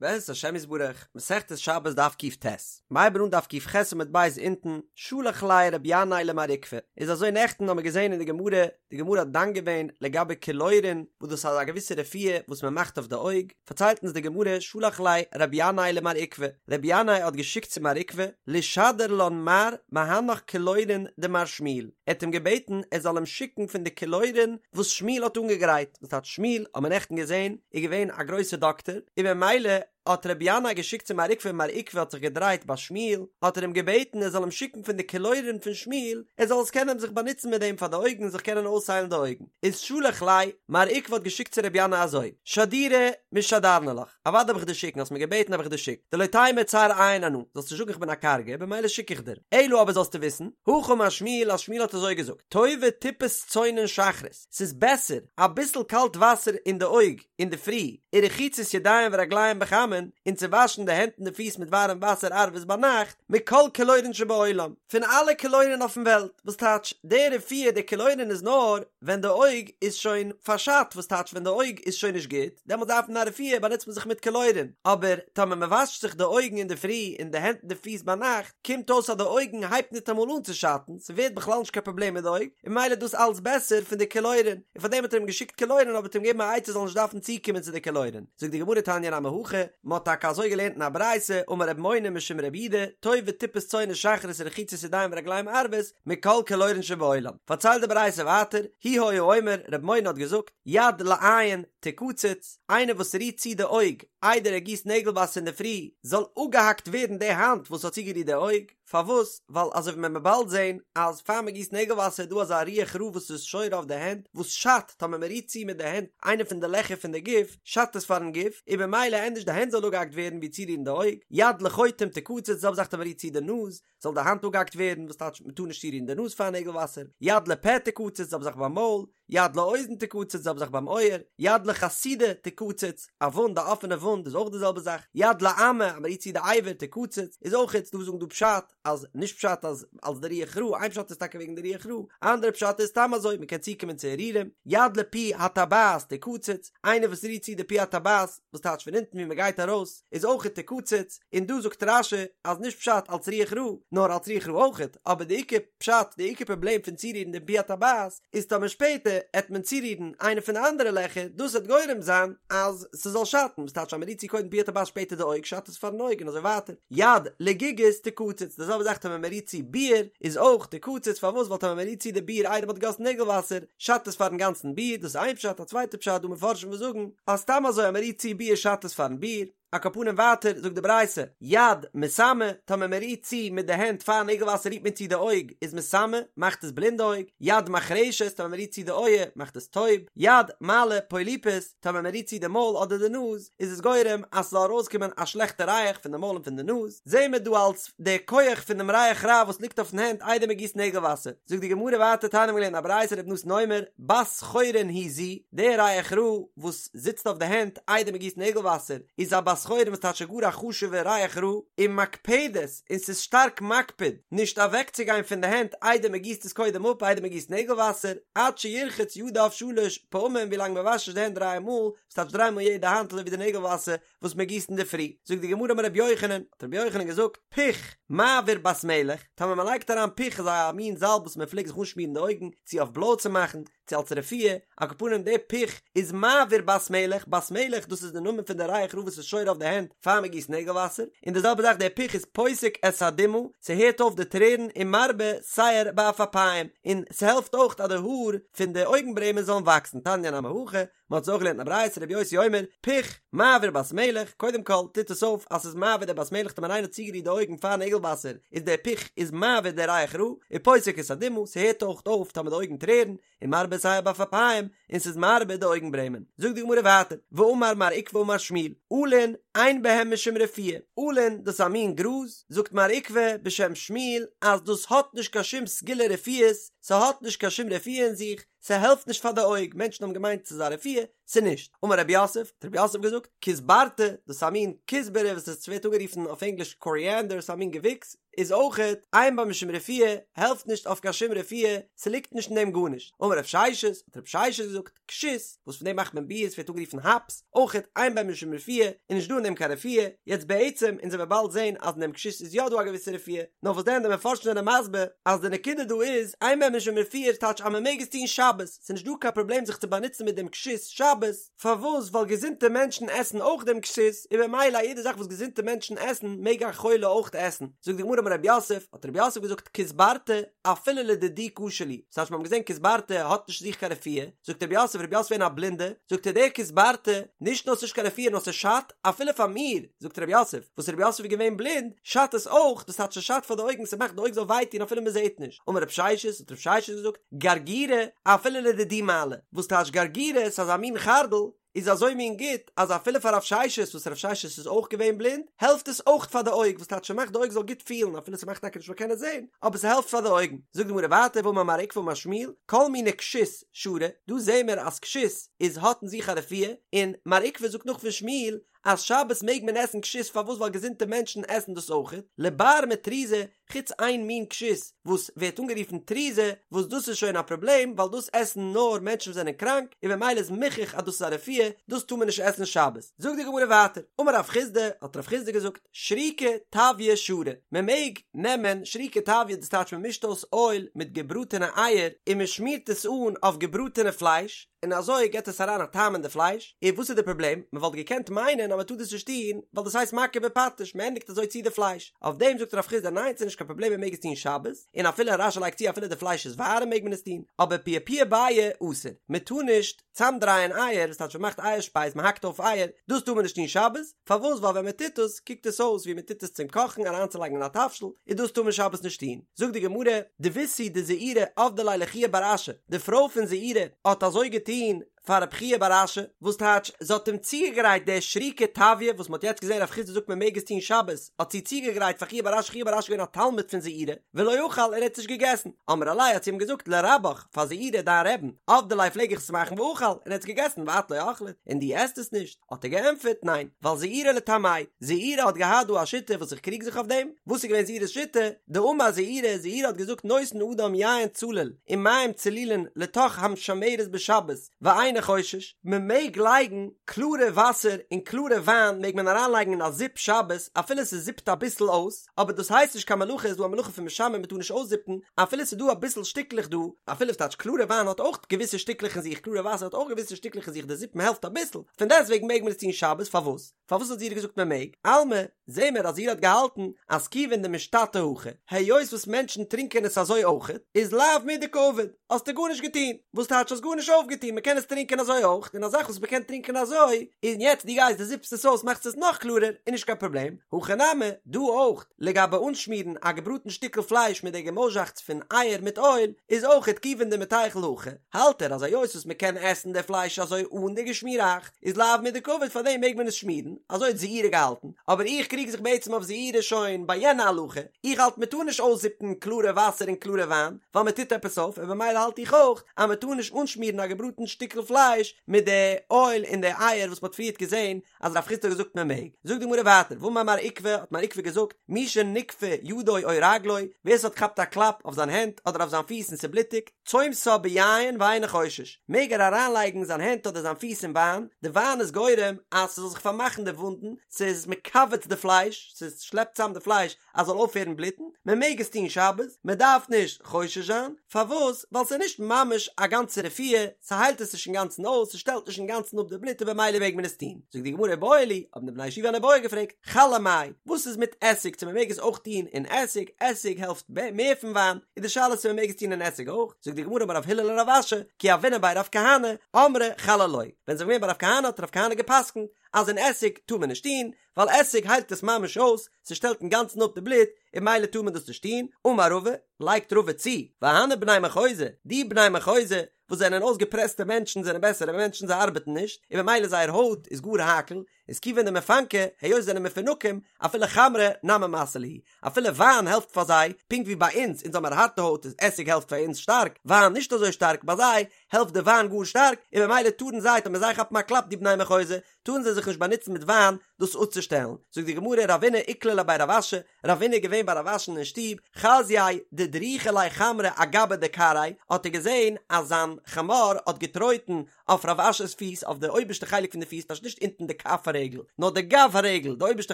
בעזרת השם יתברך, מסכת שבת דף ק"ט, מ'הייבן אן דף ק"ח עמוד ב' אונטן, שלח ליה רבי ינאי למר עוקבא, איז אזוי נעכטן האמיר געזען אין די גמרא, די גמרא האט דן געווען לגבי קילורין, וואס דאס איז א געוויסע רפואה וואס מען מאכט אויף די אויג, פארציילט אונז די גמרא, שלח ליה רבי ינאי למר עוקבא, רבי ינאי האט געשיקט צו מר עוקבא, לשדר לן מר מהנך קילורין דמר שמואל, ער האט אים געבעטן ער זאל אים שיקן פון די קילורין וואס שמואל האט אנגעגרייט, וואס טייטש שמואל האט מען נעכטן געזען איז געווען א גרויסער דאקטער, און במילא האט רבי ינאי געשיקט צו מר עוקבא און מר עוקבא האט זיך געדרייט ביי שמואל, האט ער אים געבעטן ער זאל אים שיקן פון די קילורין פון שמואל, ער זאל עס קענען זיך באנוצן מיט דעם פאר די אויגן זיך קענען אויסהיילן די אויגן. איז שלח ליה, מר עוקבא האט געשיקט צו רבי ינאי אזוי, שדורי משדרנא לך, אוודאי וועל איך דיר שיקן, האסט מיר געבעטן האב איך דיר געשיקט, דלא תימא צר עין אנא, זאלסט נישט זאגן איך בין א קארגע, במילא שיק איך דיר, אלא אבער זאלסטו וויסן, הכי אמר שמואל אז שמואל האט אזוי געזאגט, טובה טיפת צונן שחרית, ס'איז בעסער אביסל קאלט וואסער אין די אויג אינדערפרי, ורחיצת ידיים ורגליים בחמין, און צו וואשן די הענט און די פיס מיט ווארעם וואסער ערבית ביינאכט, מכל קילורין שבעולם, פון אלע קילורין אויפן וועלט, וואס טייטש, די רפואה די קילורין איז נאר ווען די אויג איז שוין פארשאדט, וואס טייטש ווען די אויג איז שוין נישט גוט, דעמאלט דארף מען א רפואה באנוצט מען זיך מיט קילורין, אבער טאמער מען וואשט זיך די אויגן אינדערפרי און די הענט און די פיס ביינאכט, קומט אויס אז די אויגן הייבט ניטאמאל אן צו שאטן, ס'ווערט בכלל נישט קיין פראבלעם מיט די אויג, און ממילא איז דאס אלץ בעסער פון די קילורין, און פארדעם האט ער אים געשיקט קילורין אבער האט אים געגעבן א עצה זאל נישט דארפן צוקומען צו די קילורין. זאגט די גמרא תניא נמי הכי, מ'האט טאקע אזוי געלערנט אין א ברייתא, אמר ר' מונא משום רב יהודה, טובה טיפת צונן שחרית ורחיצת ידיים ורגליים ערבית, מכל קילורין שבעולם. פארציילט די ברייתא ווייטער, הוא היה אומר, ר' מונא האט געזאגט, יד לעין תקצץ, איינער וואס רירט צו די אויג איידער ער גיסט נעגל וואסער אינדערפרי, זאל אפגעהאקט ווערן די האנט וואס האט צוגערירט די אויג, פארוואס? ווייל אזוי ווי מען וועט באלד זען אז פאר מען גיסט נעגל וואסער איז דא אזא רוח רעה וואס איז שורה אויף די הענט וואס שאדט טאמער מען רירט צו מיט די הענט איינע פון די לעכער פון די גוף שאדט עס פארן גוף און במילא ענדערש די הענט זאל אפגעהאקט ווערן ווי צורירן די אויג, יד לחוטם תקצץ, די זעלבע זאך טאמער מען רירט צו די נאז זאל די האנט אפגעהאקט ווערן וואס טייטש מען טאר נישט צורירן די נאז פאר נעגל וואסער, יד לפה תקצץ, די זעלבע זאך ביים מויל, יד לאוזן תקצץ, די זעלבע זאך ביים אויער, יד לחסידה תקצץ, א וואונד א אפענע וואונד איז אויך די זעלבע זאך, יד לאמה אז מען רירט צו די אבר תקצץ איז אויך דא וואס זאגן דא פשט אז נישט פשט אז אלס די רוח רעה, איין פשט איז טאקע וועגן די רוח רעה, אנדערע פשט איז סתם אזוי מען קען צוקומען צו הרהורים, יד לפי הטבעת תקצץ, איינער וואס רירט צו די פי הטבעת, וואס טייטש פון אונטן ווי מען גייט ארויס, איז אויך תקצץ, און דא זאגט רש"י אז נישט פשט אלס רוח רעה, נאר אלס רוח רעה אויכעט, אבער די עיקר פשט, די עיקר פראבלעם פון צורירן דעם פי הטבעת, איז טאמער שפעטער עט מען צורירן איינע פון די אנדערע לעכער, דאס עט גורם זיין אז ס'זאל שאטן, וואס טייטש אז מ'רירט צו קודם פי הטבעת שפעטער די אויג שאדט עס פארן אויג און אזוי ווייטער, יד לגיגית תקצץ, די זעלבע זאך טאמער מ'רירט צו ביער איז אויך תקצץ, פארוואס ווייל טאמער מ'רירט צו די ביער איידער מ'האט געגאסן נעגל וואסער, שאדט עס פארן גאנצן ביר, דאס איז איין פשט, א צווייטע פשט דא מפרשים וואס זאגן אז סתם אזוי אז מען רירט צו ביר שאדט עס פארן ביר, על כל פנים ווייטער זאגט די ברייתא, יד מסמא, טאמער מען רירט צו מיט די הענט פאר נעגל וואסער רירט מען צו די אויג איז מסמא, מאכט עס בלינד די אויג, יד מחרשת, טאמער מען רירט צו די אויער מאכט עס טויב, יד מעלה פוליפוס, טאמער מען רירט צו די מויל אדער די נאז איז עס גורם אז ס'זאל ארויסקומען א שלעכטע ריח פון די מויל און פון די נאז, זעהן מיר דא אלס די כח פון דעם ריח רע וואס ליגט אויפן הענט איידער מען גיסט נעגל וואסער, זאגט די גמרא ווייטער תניא מ'האט געלערנט א ברייתא רבי נתן אומר, בת חורין היא זו, די ריח רע וואס זיצט אויף די הענט איידער מען גיסט נעגל וואסער איז א בת חורין וואס טייטש גאר א חשוב'ע ריח רע, ומקפדת, און ס'איז שטארק מקפיד נישט אוועקצוגיין פון די הענט איידער מען גיסט עס קודם אפ איידער מען גיסט נעגל וואסער, עד שירחוץ ידיו שלש פעמים ווילאנג מען וואשט נישט די הענט דריי מאל, וואס טייטש דריי מאל יעדע האנט אזוי ווי די נעגל וואסער וואס מען גיסט אינדערפרי, זאגט די גמרא אמר רבי יוחנן, האט רבי יוחנן געזאגט, פוך, מעביר בת מלך, טאמער מען לייגט אריין פוך איז א מין זאלב וואס מען פלעגט זיך אנשמירן די אויגן, צו אויף בלוי צו מאכן, צו אלס רפואה, על כל פנים די פוך איז מעביר בת מלך, בת מלך דאס איז די נאמען פון די ריח רע וואס איז שורה אויף די הענט פאר מען גיסט נעגל וואסער, און די זעלבע זאך די פוך איז פוסק את הדמעה, ס'הערט אויף די טרערן און מרבה שער בעפעפיים, און ס'העלפט אויך אז די האר פון די אויגן ברעמען זאלן וואקסן, תניא נמי הכי, מען האט עס אויך געלערנט אין א ברייתא רבי יוסי אומר, פוך, מעביר בת מלך, קודם כל טוט עס אויף אז ס'איז מעביר די בת מלך טאמער איינער האט צוגערירט די אויגן פאר נעגל וואסער איז דער פוך איז מעביר די ריח רע, ופוסק את הדמעה, ס'הערט אויך אויף טאמער די אויגן טרערן, און מרבה שער בעפעפיים, און ס'איז מרבה די אויגן ברעמען. זאגט די גמרא ווייטער, ואמר מר עוקבא אמר שמואל, עלין, אין בהם משום רפואה, עלין דאס איז א מין גראז, זאגט מר עוקבא בשם שמואל אז דאס האט נישט קיין שום סגולה רפואות, ס'האט נישט קיין שום רפואה אין זיך, ס'העלפט נישט פאר די אויג, מענטשן האבן געמיינט ס'איז א רפואה, צו נישט. אמר רב יוסף, האט רב יוסף געזאגט, כוסברתא, דאס איז א מין כוסברה וואס עס ווערט אנגערופן אויף ענגליש קאריענדער, ס'איז א מין געוויקס, איז אויכעט אין בה משום רפואה, העלפט נישט אויף קיין שום רפואה, ס'ליגט נישט אין דעם גארנישט. אמר רב ששת, האט רב ששת געזאגט, כשות, וואס פון דעם מאכט מען ביר, ס'ווערט אנגערופן האפס, אויכעט אין בה משום רפואה, איז נישט דא אין דעם קיין רפואה, יעצט בעצם, אונז וועלן באלד זען אז אין דעם כשות איז יא דא א געוויסע רפואה, נאר וואס דען די מפרשים זענען מסביר אז די נקודה דא איז, אין בה משום רפואה איז טייטש אז מ'מעג עס טון שבת, ס'איז נישט דא קיין פראבלעם זיך צו באנוצן מיט דעם כשות שבת, פארוואס? ווייל געזונטע מענטשן עסן אויך דעם כשות, און במילא א יעדע זאך וואס געזונטע מענטשן עסן מעג א חולה אויך עסן. זאגט די גמרא אמר רב יוסף, האט רב יוסף געזאגט כוסברתא אפילו לדידי קשה לי, ס'הייסט מיר האבן געזען כוסברתא האט נישט זיך קיין רפואה, זאגט רב יוסף, רב יוסף געווען א בלינדע, זאגט ער דער כוסברתא, נישט נאר ס'נישט קיין רפואה נאר ס'שאדט אפילו פאר מיר, זאגט רב יוסף, וואס רב יוסף איז געווען בלינד, שאדט עס אויך, דאס טייטש ס'שאדט פאר די אויגן, ס'מאכט די אויג זאל וויי טון אפילו מ'זעט נישט. אמר רב ששת, האט רב ששת געזאגט, גרגירא, אפילו לדידי מעלי, וואס טייטש גרגירא, ס'איז אזא מין חרדל, איז אזוי מין גוט, אז אפילו פאר רב ששת, וואס רב ששת איז אויך געווען בלינד, העלפט עס אויך פאר די אויג, וואס טייטש ס'מאכט די אויג זאל גוט פילן, אפילו ס'מאכט טאקע נישט מ'זאל קענען זען, אבער ס'העלפט פאר די אויגן. זאגט די גמרא ווייטער, ואמר מר עוקבא אמר שמואל, כל מיני כשות שרי, דא זעהן מיר אז כשות איז האט אין זיך א רפואה, און מר עוקבא זאגט נאך פון שמואל, אז שבת מעג מען עסן כשות פארוואס ווייל געזונטע מענטשן עסן דאס אויכעט, לבר מטרוזא, חוץ איין מין כשות וואס ווערט אנגערופן טרוזא וואס דאס איז שוין א פראבלעם ווייל דאס עסן נאר מענטשן וואס זענען קראנק און במילא איז מוכח אז דאס איז א רפואה דאס טאר מען נישט עסן שבת. זאגט די גמרא ווייטער, אמר רב חסדא, האט רב חסדא געזאגט, שריקא טביא שרי, מען מעג נעמען שריקא טביא דאס טייטש מען מישט אויס אויל מיט געבראטענע אייער און מען שמירט עס אן אויף געבראטענע פלייש, און אזוי געט עס אריין א טעם אין די פלייש, און וואס איז די פראבלעם? מען וואלט געקענט מיינען אז מען טאר דאס נישט טון, ווייל דאס הייסט מכה בפטיש, מען ענדיגט אזוי צו די פלייש, אויף דעם זאגט רב חסדא ניין ס'איז נישט קיין פראבלעם מען מעג עס טון שבת, און אפילו רש"י לייגט צו אפילו די פלייש איז ווארעם מעג מען עס טון, אבער פיעפועי ביעי אסור, מען טאר נישט צאמדרייען אייער, וואס טייטש מען מאכט אייער שפייז מען האקט אויף אייער, דאס טאר מען נישט טון שבת, פארוואס ווייל ווען מען טוט עס קוקט עס אויס ווי מען טוט עס צום קאכן אריינצולייגן אין א תבשיל, און דאס טאר מען שבת נישט טון. זאגט די גמרא, דביתהו דזעירי עבדה ליה לחייא בר אשי, די פרוי פון זעירי האט אזוי געטון פאר רב חייא בר אשי, וואס טייטש זי האט אים צוגעגרייט די שריקא טביא וואס מען האט יעצט געזען רב חסדא זאגט מען מעג עס טון שבת, האט זי צוגעגרייט פאר חייא בר אשי, חייא בר אשי איז געווען א תלמיד פון זעירי, ולא אכל און ער האט עס נישט געגעסן, אמרה ליה האט זי אים געזאגט לרבך, פאר זעירי דיין רעבן, עבדי ליה פלעג איך עס מאכן ואכל און ער האט עס געגעסן ואת לא אכלת, און דו עסט עס נישט. האט ער געענטפערט, ניין, ווייל זעירי לטעמיה, זעירי האט געהאט דא א שיטה וואס איך קריג זיך אויף דעם, וואס איז געווען זעירי'ס שיטה? דאמר זעירי, זעירי האט געזאגט נותן אדם יין צלול ומים צלולין לתוך המשמרת בשבת ואינו חושש, מען מעג לייגן קלארע וואסער און קלארע וויין מעג מען אריינלייגן אין א זיפ שבת אפילו ס'זיפט אביסל אויס, אבער דאס הייסט נישט קיין מלאכה, איז דא א מלאכה פון משמר מען טאר נישט אויסזיפן אפילו ס'איז דא אביסל שטיקלעך דא, אפילו ס'טייטש קלארע וויין האט אויך געוויסע שטיקלעך אין זיך, קלארע וואסער האט אויך געוויסע שטיקלעך אין זיך, די זיפן העלפט אביסל, פון דעסטוועגן מעג מען עס טון שבת, פארוואס? פארוואס האט זעירי געזאגט מען מעג? אלמא, זעהן מיר אז זעירי האט געהאלטן אז כיוון דמשתתי הכי, היות וואס מענטשן טרינקען עס אזוי אויכעט, איז לאו מידי קעביד, האסטו גארנישט געטון, וואס טייטש האסט גארנישט אויפגעטון, מען קען עס טרינקען אזוי אויך, און א זאך וואס מען קען טרינקען אזוי, און יעצט דו גייסט דו זיפסט עס אויס מאכסט עס נאך קלארער, איז נישט קיין פראבלעם, הכא נמי, דא אויך, לגבי אנשמירן א געבראטן שטיקל פלייש מיט די געמויזשאכץ פון אייער מיט אויל, איז אויכעט כיוון דמיתיכל הכי, האלט ער אז היות וואס מען קען עסן די פלייש אזוי אן די געשמיראכץ, איז לאו מידי קעביד פאר דעם מעג מען עס שמירן, אזוי האט זעירי געהאלטן, אבער איך קריג זיך בעצם אויף זעירי שוין ביי יענע הלכה, איך האלט מען טאר נישט אויסזיפן קלארע וואסער און קלארע וויין, ווייל מען טוט עפעס אויף, און במילא האלט איך אויך אז מען טאר נישט אנשמירן א געבראטן שטיקל פלייש מיט די אויל און די אייער וואס מען האט פריערט געזען אז רב חסדא האט געזאגט מען מעג. זאגט די גמרא ווייטער, ואמר מר עוקבא, האט מר עוקבא געזאגט, מי שנגפה ידו או רגלו, ווער ס'האט געכאפט א קלאפ אויף זיין הענט אדער אויף זיין פיס און ס'בלוטיגט, צומתה ביין ואינו חושש, מעג ער אריינלייגן זיין הענט אדער זיין פיס אין וויין, די וויין איז גורם אז ס'זאל זיך פארמאכן די וואונדן, ס'איז מכווץ די פלייש, ס'שלעפט צאם די פלייש אז ס'זאל אויפהערן בלוטן, מען מעג עס טון שבת, מען דארף נישט חושש זיין, פארוואס? ווייל ס'איז נישט ממש א גאנצע רפואה, ס'היילט עס נישט אינגאנצן אויס, ס'שטעלט נישט אינגאנצן אפ די בלוט און במילא מעג מען עס טון. זאגט די גמרא איבעיא להו, האבן די בני ישיבה אן איבעיא געפרעגט, חלא מאי, וואס איז מיט עסיג צו מען מעג עס אויך טון אין עסיג, עסיג העלפט מער פון וויין, איז די שאלה צו מען מעג עס טון אין עסיג אויך, זאגט די גמרא אמר רב הלל לרב אשי, כי הוינן בי רב כהנא, אמרי חלא לא, ווען זיי זענען געווען ביי רב כהנא האט רב כהנא גע'פסק'נט אז אין עסיג טאר מען נישט טון, ווייל עסיג היילט עס ממש אויס, ס'שטעלט אינגאנצן אפ די בלוט, און ממילא טאר מען דאס נישט טון, אמר רבא, לייגט רבא צו, והני בני מחוזא, די בני מחוזא, וואס זענען אויסגעפרעסטע מענטשן זענען בעסערע מענטשן זיי ארבעטן נישט, און ממילא זייער הויט איז גאר הייקל, איז כיוון דמפנקי, היות זיי זענען מפונקים, אפילו חמרא נמי מסי להו, אפילו וויין העלפט פאר זיי, פונקט ווי ביי אונז, אונז האמיר הארטע הויט איז עסיג העלפט פאר אונז שטארק, וויין נישט אזוי שטארק, ביי זיי העלפט די וויין גאר שטארק, און במילא טארן זיי, טאמער זיי כאפן א קלאפ די בני מחוזא, טארן זיי זיך נישט באנוצן מיט וויין דאס אפצושטעלן. זאגט די גמרא, רבינא איקלע לבי רב אשי, רבינא איז געווען ביי רב אשי'ן אין שטוב, חזייה דדריכי ליה חמרא אגבא דכרעיה, האט ער געזען אז זיין חמור האט געטרויטן אויף רב אשי'ס פיס, אויף די אויבערשטע חלק פון די פיס, טייטש נישט אונטן די כף הרגל, נאר די גב הרגל, די אויבערשטע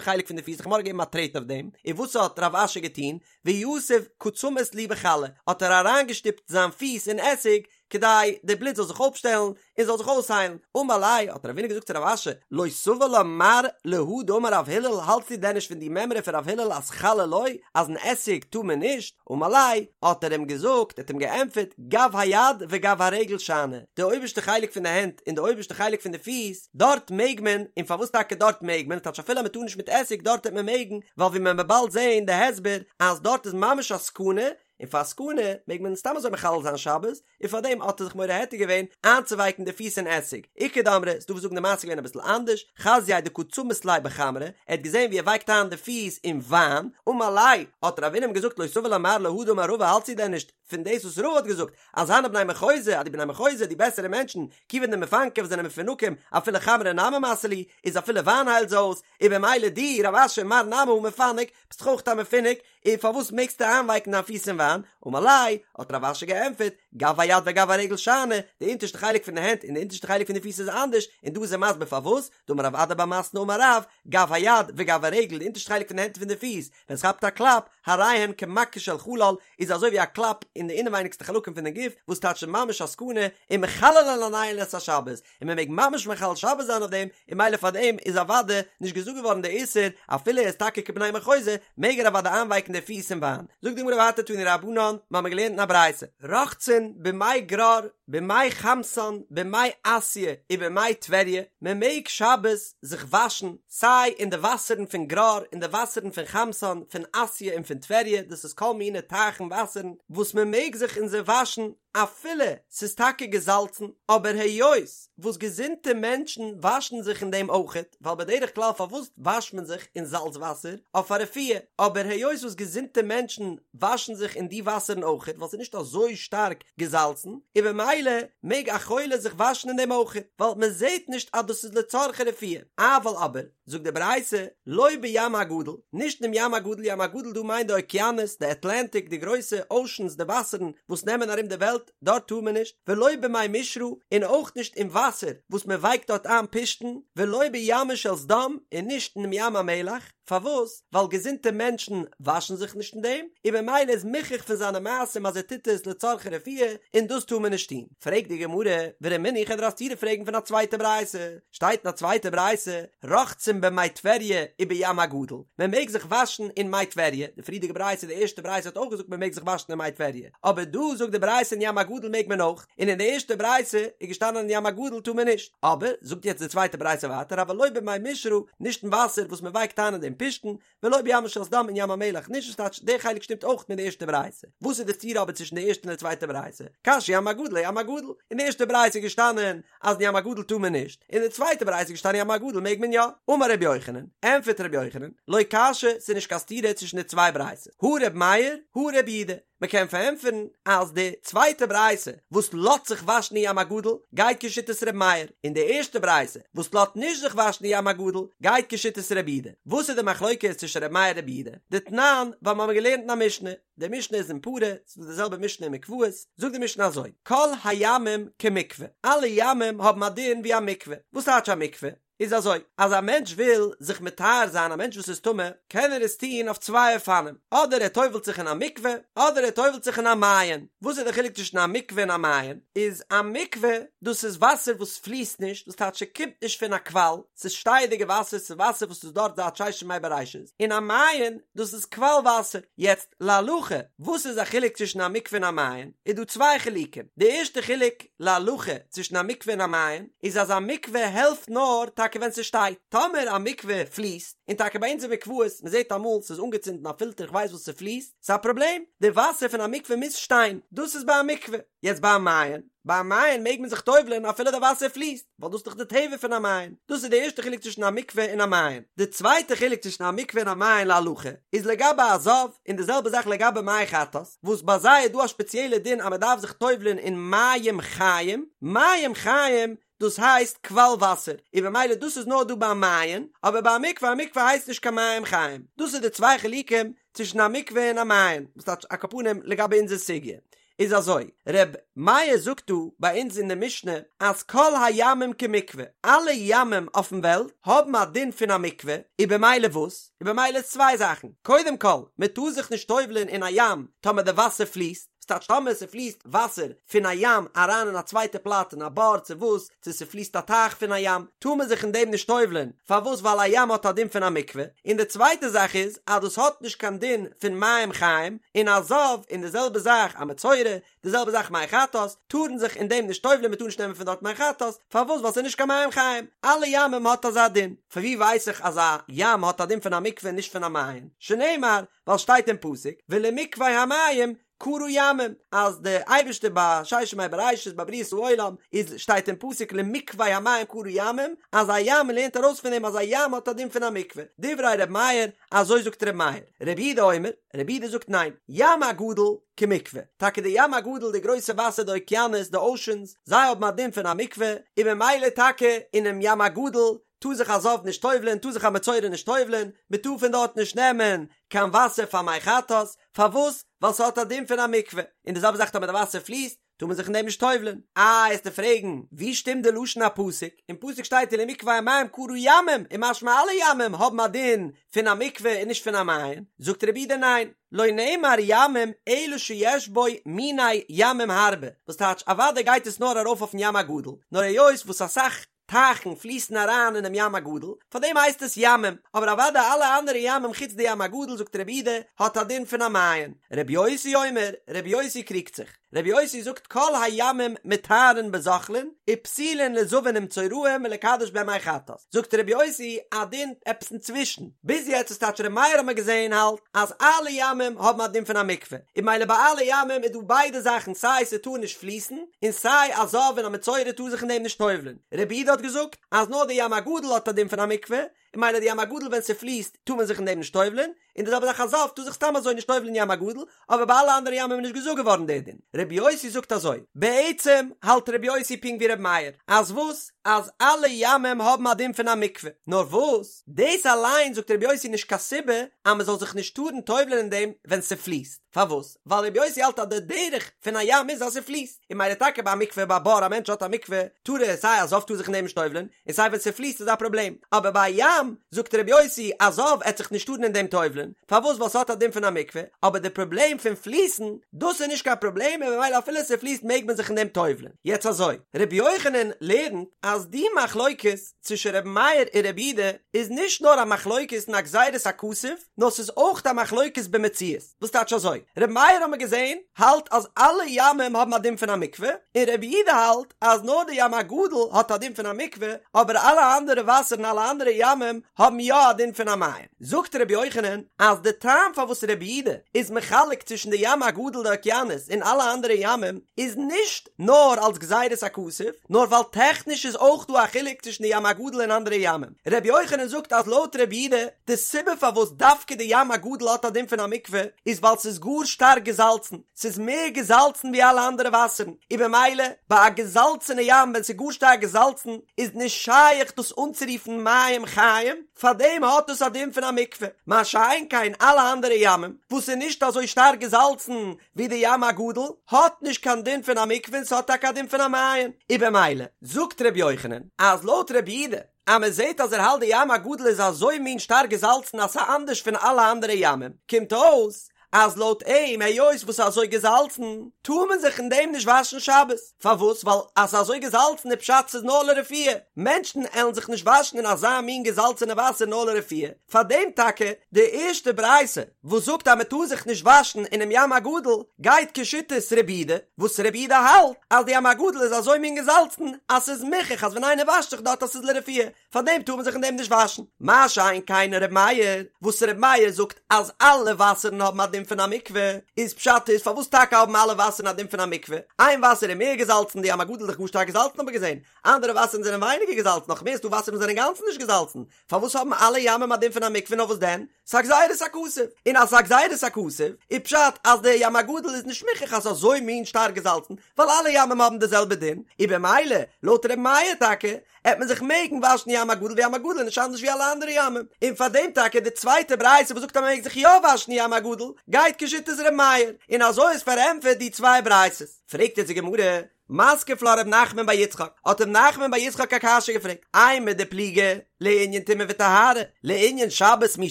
חלק פון די פיס, די חמור האט געגעבן א טרעט אויף דעם, און וואס האט רב אשי געטון? ויתיב קא צמית להו בחלא, האט ער אריינגעשטופט זיין פיס אין עסיג, כדי די בלוט זאל זיך אויפשטעלן און זאל זיך אויסהיילן, אמר ליה, האט רבינא געזאגט צו רב אשי, לא סבר לה מר להא דאמר רב הלל, האלטסטו דען נישט פון די מימרא פון רב הלל אז חלא לא, אז אין עסיג טאר מען נישט? אמר ליה, האט ער אים געזאגט, ער האט אים געענטפערט, גב היד וגב הרגל שאני, די אויבערשטע חלק פון די הענט און די אויבערשטע חלק פון די פיס, דארט מעג מען, און פארוואס טאקע דארט מעג מען, טייטש אפילו אז מען טאר נישט מיט עסיג דארט וועט מען מעגן, ווייל ווי מען וועט באלד זען די הסבר אז דארט איז ממש א סכנה, און פאר סכנה מעג מען סתם אזוי מחלל זיין שבת, און פאר דעם האט ער זיך מורה היתר געווען איינצואווייקן די פיס אין עסיג. איכא דאמרי, ס'דא וואס זאגן די מעשה איז געווען אביסל אנדערש, חזייה דקא צמית ליה בחמרא, ער האט געזען ווי ער ווייקט איין די פיס אין וויין, אמר ליה, האט רבינא אים געזאגט לא סבר לה מר להא דאמר רבא האלטסטו דען נישט פון דאס וואס רבא האט געזאגט אז הני בני מחוזא אז די בני מחוזא די בעסערע מענטשן כיוון דמפנקי וואס זענען מפונקים אפילו חמרא נמי מסי להו איז אפילו וויין היילט זיי אויס, און במילא דו רב אשי מר נמי הא מפנק ביסט דאך אויך א מפונק, און פארוואס מעגסטו איינווייקן דיין פיס אין וויין? אמר ליה, האט רב אשי געענטפערט, גב היד וגב הרגל שאני, די אונטערשטע חלק פון די הענט און די אונטערשטע חלק פון די פיס איז אנדערש, און דא איז ער מסביר פארוואס, דאמר רב אדא בר מתנה אמר רב, גב היד וגב הרגל, די אונטערשטע חלק פון די הענט און פון די פיס, ווען עס כאפט א קלאפ, הרי הן כמכה של חלל, איז אזוי ווי א קלאפ אין די אינעווייניגסטע חלקים פון די גוף, וואס טייטש ממש א סכנה, ומחללין עליהן את השבת, און מען מעג ממש מחלל שבת זיין אויף דעם, און ממילא פאר דעם איז אוודאי נישט געזאגט געווארן די איסור, אפילו ער איז טאקע כבני מחוזא, מעג ער אוודאי איינווייקן די פיס אין וויין. זאגט די גמרא ווייטער תנו רבנן, מיר האבן געלערנט אין א ברייתא, רוחצין במי גרר, במי חמתן, במי אסיא, ובמי טבריה, מען מעג שבת זיך וואשן סיי אין די וואסערן פון גרר, אין די וואסערן פון חמתן, פון אסיא און פון טבריה, דאס איז כל מיני טייכן וואסערן וואס מען מעג זיך אין זיי וואשן, אפילו ס'איז טאקע געזאלצן, אבער היות וואס געזונטע מענטשן וואשן זיך אין דעם אויכעט, ווייל בדרך כלל פארוואס וואשט מען זיך אין זאלץ וואסער? אויף א רפואה, אבער היות וואס געזונטע מענטשן וואשן זיך אין די וואסערן אויכעט ווייל ס'איז נישט אזוי שטארק געזאלצן, און במילא מעג א חולה זיך וואשן אין דעם אויכעט, ווייל מ'זעט נישט אז דאס איז לצרכי רפואה. אבל אבער, זאגט די ברייתא, לא בים הגדול, נישט אינעם ים הגדול, ים הגדול דא מיינט די אוקיינוס, די אטלענטיק, די גרויסע אושענס, די וואסערן וואס נעמען ארום די וועלט, דארט טאר מען נישט, ולא במי משרה, און אויך נישט אין וואסער וואס מען ווייקט דארט איין פשתן, ולא בימה של סדום, און נישט אינעם ים המלח, פארוואס? ווייל געזונטע מענטשן וואשן זיך נישט אין דעם, און במילא איז מוכח פון זיינע מעשים אז ער טוט עס לצרכי רפואה, און דאס טאר מען נישט טון. פרעגט די גמרא, ורמינהו איך וועל דיר א סתירה פרעגן פון א צווייטע ברייתא, שטייט אין א צווייטע ברייתא, רוחצין במי טבריה ובים הגדול, מען מעג זיך וואשן אין מי טבריה, די פריערדיגע ברייתא, די ערשטע ברייתא האט אויך געזאגט מען מעג זיך וואשן אין מי טבריה, אבער דא זאגט די ברייתא אין ים הגדול מעג מען אויך, און אין די ערשטע ברייתא איז געשטאנען אין ים הגדול טאר מען נישט, אבער זאגט יעצט די צווייטע ברייתא ווייטער אבל לא במי משרה, נישט אין וואסער וואס מען ווייקט איין אין דעם פשתן, ולא בימה של סדום אין ים המלח נישט וואס טייטש דער חלק שטימט אויך מיט די ערשטע ברייתא וואס איז די סתירה אבער צווישן די ערשטע און די צווייטע ברייתא קשיא ים הגדול אים הגדול אין די ערשטע ברייתא איז געשטאנען אז אין ים הגדול טאר מען נישט אין די צווייטע ברייתא איז געשטאנען ים הגדול מעג מען יא אמר רבי יוחנן ענטפערט רבי יוחנן לא קשיא ס'איז נישט קיין סתירה צווישן די צוויי ברייתות הא רבי מאיר הא רבי יהודה מען קען פארענטפערן אז די צווייטע ברייתא וואס לאזט זיך וואשן אין ים הגדול גייט כשיטת ר' מאיר, און די ערשטע ברייתא וואס לאזט נישט זיך וואשן אין ים הגדול גייט כשיטת ר' יהודה. וואס איז די מחלוקת צווישן ר' מאיר און ר' יהודה? דתנן, ווייל מיר האבן געלערנט אין א משנה, די משנה איז אין פרה, ס'איז דא די זעלבע משנה אין מקוואות, זאגט די משנה אזוי, כל הימים כמקווה, אלע ימים האבן א דין ווי א מקווה, וואס טייטש א מקווה? איז אזוי, אז א מענטש וויל זיך מטהר זיין, א מענטש וואס איז טמא, קען ער עס טון אויף צוויי אופנים, אדער ער טובל'ט זיך אין א מקווה, אדער ער טובל'ט זיך אין א מעיין. וואס איז די חילוק צווישן א מקווה און א מעיין? איז א מקווה, דאס איז וואסער וואס פליסט נישט, דאס טייטש ס'קומט נישט פון א קוואל, ס'איז שטייעדיגע וואסער, ס'איז וואסער וואס איז דארט זייט ששת ימי בראשית, און א מעיין, דאס איז קוואל וואסער. יעצט, להלכה, וואס איז א חילוק צווישן א מקווה און א מעיין? איז דא צוויי חילוקים. די ערשטע חילוק, להלכה, צווישן א מקווה און א מעיין, איז אז א מקווה העלפט נאר טאקע. טאקע ווען ס'שטייט. טאמער א מקווה פליסט, און טאקע ביי אונז אין מקוואות, מ'זעט אמאל ס'איז אנגעצינדן א פילטער כ'ווייס וואס ס'פליסט, ס'איז א פראבלעם, די וואסער פון א מקווה מוז שטיין, דאס איז ביי א מקווה. יעצט ביי א מעיין, ביי א מעיין מעג מען זיך טובל'ען אפילו די וואסער פליסט, ווייל דאס איז דאך די טבע פון א מעיין. דאס איז די ערשטע חילוק צווישן א מקווה און א מעיין. די צווייטע חילוק צווישן א מקווה און א מעיין להלכה, איז לגבי א זב, און די זעלבע זאך לגבי מי חטאת, וואס ביי זיי איז דא א שפעציעלע דין אז מען דארף זיך טובל'ען אין מים חיים, מים חיים דאס הייסט קוואל וואסער, און במילא דאס איז נאר דא ביי א מעיין, אבער ביי א מקווה, א מקווה הייסט נישט קיין מים חיים. דאס איז די צוויי חילוקים צווישן א מקווה און א מעיין, וואס טייטש על כל פנים לגבי אונזער סוגיא. איז אזוי, ר' מאיר זאגט דא ביי אונז אין די משנה אז כל הימים כמקווה, אלע ימים אויפן וועלט האבן א דין פון א מקווה, און במילא וואס? און במילא איז צוויי זאכן, קודם כל, מען טאר זיך נישט טובל'ען אין א ים טאמער די וואסער פליסט, ס'טייטש טאמער ס'פליסט וואסער פון א ים אריין אין א צווייטע פלאץ אין א בור צו וואס, צו ס'פליסט א טייך פון א ים, טאר מען זיך אין דעם נישט טובל'ען, פארוואס ווייל א ים האט א דין פון א מקווה, און די צווייטע זאך איז אז דאס האט נישט קיין דין פון מים חיים, און א זב, און די זעלבע זאך א מצורע, די זעלבע זאך מי חטאת, טארן זיך אין דעם נישט טובל'ען, מ'טאר נישט נעמען פון דארט מי חטאת, פארוואס ווייל ס'איז נישט קיין מים חיים, אלע ימים האט אזא דין, פון ווי ווייס איך אז א ים האט א דין פון א מקווה און נישט פון א מעיין, שנאמר, ווייל שטייט אין פסוק, ולמקווה המים קרא ימים, אז די אייבערשטער ביי ששת ימי בראשית ביי בריאת העולם איז שטייט אין פסוק למקווה המים קרא ימים, אז א ים מען לערנט ארויס פון דעם אז א ים האט א דין פון א מקווה, דברי ר' מאיר, אזוי זאגט ר' מאיר, רבי יהודה אומר, רבי יהודה זאגט ניין, ים הגדול כמקווה, טאקע די ים הגדול די גרויסע וואסער די אוקיינוס די אושענס, זיי האבן א דין פון א מקווה, און ממילא טאקע אינעם ים הגדול טאר זיך א זב נישט טובל'ען, טאר זיך א מצורע נישט טובל'ען, מען טאר פון דארט נישט נעמען קיין וואסער פאר מי חטאת, פארוואס? ווייל ס'האט א דין פון א מקווה, און די זעלבע זאך טאמער די וואסער פליסט, טאר מען זיך אין דעם נישט טובל'ען. איי, עסטו פרעגן, ווי שטימט די לשון הפסוק? אין פסוק שטייט ולמקווה המים קרא ימים, און משמע אלע ימים האבן א דין פון א מקווה און נישט פון א מעיין, זאגט רבי יהודה ניין, לא נאמר ימים אלא שיש בו מיני ימים הרבה, וואס טייטש אוודאי גייט עס נאר ארויף אויפן ים הגדול, נאר היות וואס אסאך טייכן פליסן אריין אינעם ים הגדול, פאר דעם הייסט עס ימים, אבער אוודאי אלע אנדערע ימים חוץ די ים הגדול זאגט רבי יהודה האט א דין פון א מעיין. רבי יוסי אומר, רבי יוסי קריגט זיך, רבי יוסי זאגט כל הימים מטהרין בזוחלין ופסולין לזבין ומצורעים ולקדש בהן מי חטאת, זאגט רבי יוסי א דין עפעס אינצווישן, ביז יעצט איז טייטש רבי מאיר האט מען געזען האלט אז אלע ימים האבן א דין פון א מקווה, און ממילא ביי אלע ימים איז דא ביידע זאכן סיי ס'טאר נישט פליסן, און סיי א זב און א מצורע טאר זיך אין דעם נישט טובל'ן. רבי יהודה האט געזאגט אז נאר די ים הגדול האט א דין פון א מקווה, און ממילא די ים הגדול ווען ס'פליסט טאר מען זיך אין דעם נישט טובל'ן, און די זעלבע זאך א זב טאר זיך סתם אזוי נישט טובל'ן אין ים הגדול, אבער ביי אלע אנדערע ימים איז נישט געזאגט געווארן דער דין. רבי יוסי זאגט אזוי, בעצם האלט רבי יוסי פונקט ווי רבי מאיר, אז וואס? אז אלע ימים האבן א דין פון א מקווה, נאר וואס? דאס אליין זאגט רבי יוסי נישט קיין סיבה אז מען זאל זיך נישט טארן טובל'ן אין דעם ווען ס'פליסט. פארוואס? ווייל רבי יוסי האלט אז די דרך פון א ים איז אז ס'פליסט, און ממילא טאקע ביי א מקווה ביי א בור א מענטש האט א מקווה טאר ער סיי א זב טאר זיך אין דעם נישט טובל'ען, און סיי ווען ס'פליסט איז א פראבלעם, אבער ביי א ים זאגט רבי יוסי א זב עט זיך נישט טארן אין דעם טובל'ען, פארוואס? ווייל ס'האט א דין פון א מקווה, אבער די פראבלעם פון פליסן דאס איז נישט קיין פראבלעם און ממילא אפילו ס'פליסט מעג מען זיך אין דעם טובל'ען. יעצט אזוי, רבי יוחנן לערנט אז די מחלוקת צווישן רבי מאיר און רבי יהודה איז נישט נאר א מחלוקת אין א גזירת הכתוב, נאר ס'איז אויך א מחלוקת במציאות. וואס טייטש אזוי? רבי מאיר האט מען געזען האלט אז אלע ימים האבן א דין פון א מקווה, און רבי יהודה האלט אז נאר די ים הגדול האט א דין פון א מקווה, אבער אלע אנדערע וואסערן אלע אנדערע ימים האבן יא א דין פון א מעיין. זאגט רבי יוחנן אז די טעם פארוואס רבי יהודה איז מחלק צווישן די ים הגדול די אוקיינוס און אלע אנדערע ימים איז נישט נאר אלס גזירת הכתוב, נאר ווייל טעכניש איז אויך דא א חילוק צווישן די ים הגדול און אנדערע ימים. רבי יוחנן זאגט אז לויט רבי יהודה, די סיבה פארוואס דווקא די ים הגדול האט א דין פון א מקווה, איז ווייל ס'איז גאר שטארק געזאלצן, ס'איז מער געזאלצן ווי אלע אנדערע וואסערן, און במילא ביי א געזאלצענע ים ווען ס'איז גאר שטארק געזאלצן איז נישט שייך דאס אנצורופן מים חיים, פארדעם האט עס א דין פון א מקווה, מה שאין כן אלע אנדערע ימים וואס איז נישט אזוי שטארק געזאלצן ווי די ים הגדול, האט נישט קיין דין פון א מקווה און ס'האט טאקע א דין פון א מעיין, און במילא זאגט ר' יוחנן אז לויט ר' יהודה אז מען זעט אז ער האלט די ים הגדול איז אזוי מין שטארק געזאלצן אז ס'אנדערש פון אלע אנדערע ימים, קומט אויס. אז לויט אים היות וואס ס'איז אזוי געזאלצן טאר מען זיך אין דעם נישט וואשן שבת, פארוואס? ווייל אז ס'איז אזוי געזאלצן איז פשט ס'איז נאר לרפואה, מענטשן עלן זיך נישט וואשן אין אזא מין געזאלצענע וואסער נאר לרפואה, פארדעם טאקע די ערשטע ברייתא וואס זאגט אז מ'טאר זיך נישט וואשן אינעם ים הגדול גייט כשיטת רבי יהודה, וואס רבי יהודה האלט אז די ים הגדול איז אזוי מין געזאלצן אז ס'איז מוכח אז ווען איינער וואשט זיך דארט אז ס'איז לרפואה, פאר דעם טאר מען זיך אין דעם נישט וואשן. מה שאין כן ר' מאיר, וואס ר' מאיר זאגט אז אלע וואסערן האבן א דין פון א מקווה, איז פשט איז פארוואס טאקע האבן אלע וואסערן א דין פון א מקווה? איין וואסער איז מער געזאלצן, די ים הגדול איז דאך גאר שטארק געזאלצן האט מען געזען, אנדערע וואסערן זענען ווייניגער געזאלצן, נאך מער ס'דא וואסערן וואס זענען אינגאנצן נישט געזאלצן, פארוואס האבן אלע ימים א דין פון א מקווה נאר וואס דען? ס'א גזירת הכתוב, און אז ס'א גזירת הכתוב, איז פשט אז די ים הגדול איז נישט מוכרח אז ס'איז אזוי מין שטארק געזאלצן, ווייל אלע ימים האבן די זעלבע דין, און במילא, לויט ר' מאיר טאקע, עט מען זיך מעגן וואשן ים הגדול ווייל ים הגדול איז נישט אנדערש ווי אלע אנדערע ימים, און פאר דעם טאקע די צווייטע ברייתא וואס זאגט אז מען מעג זיך יא וואשן ים הגדול, גייט כשיטת ר' מאיר, און אזוי איז פארענטפערט די צוויי ברייתות. פרעגט יעצט די גמרא, מתקיף לה ר' נחמן בר יצחק, האט ר' נחמן בר יצחק א קשיא געפרעגט, אימר דפליגי לענין טומאה וטהרה, לענין שבת מי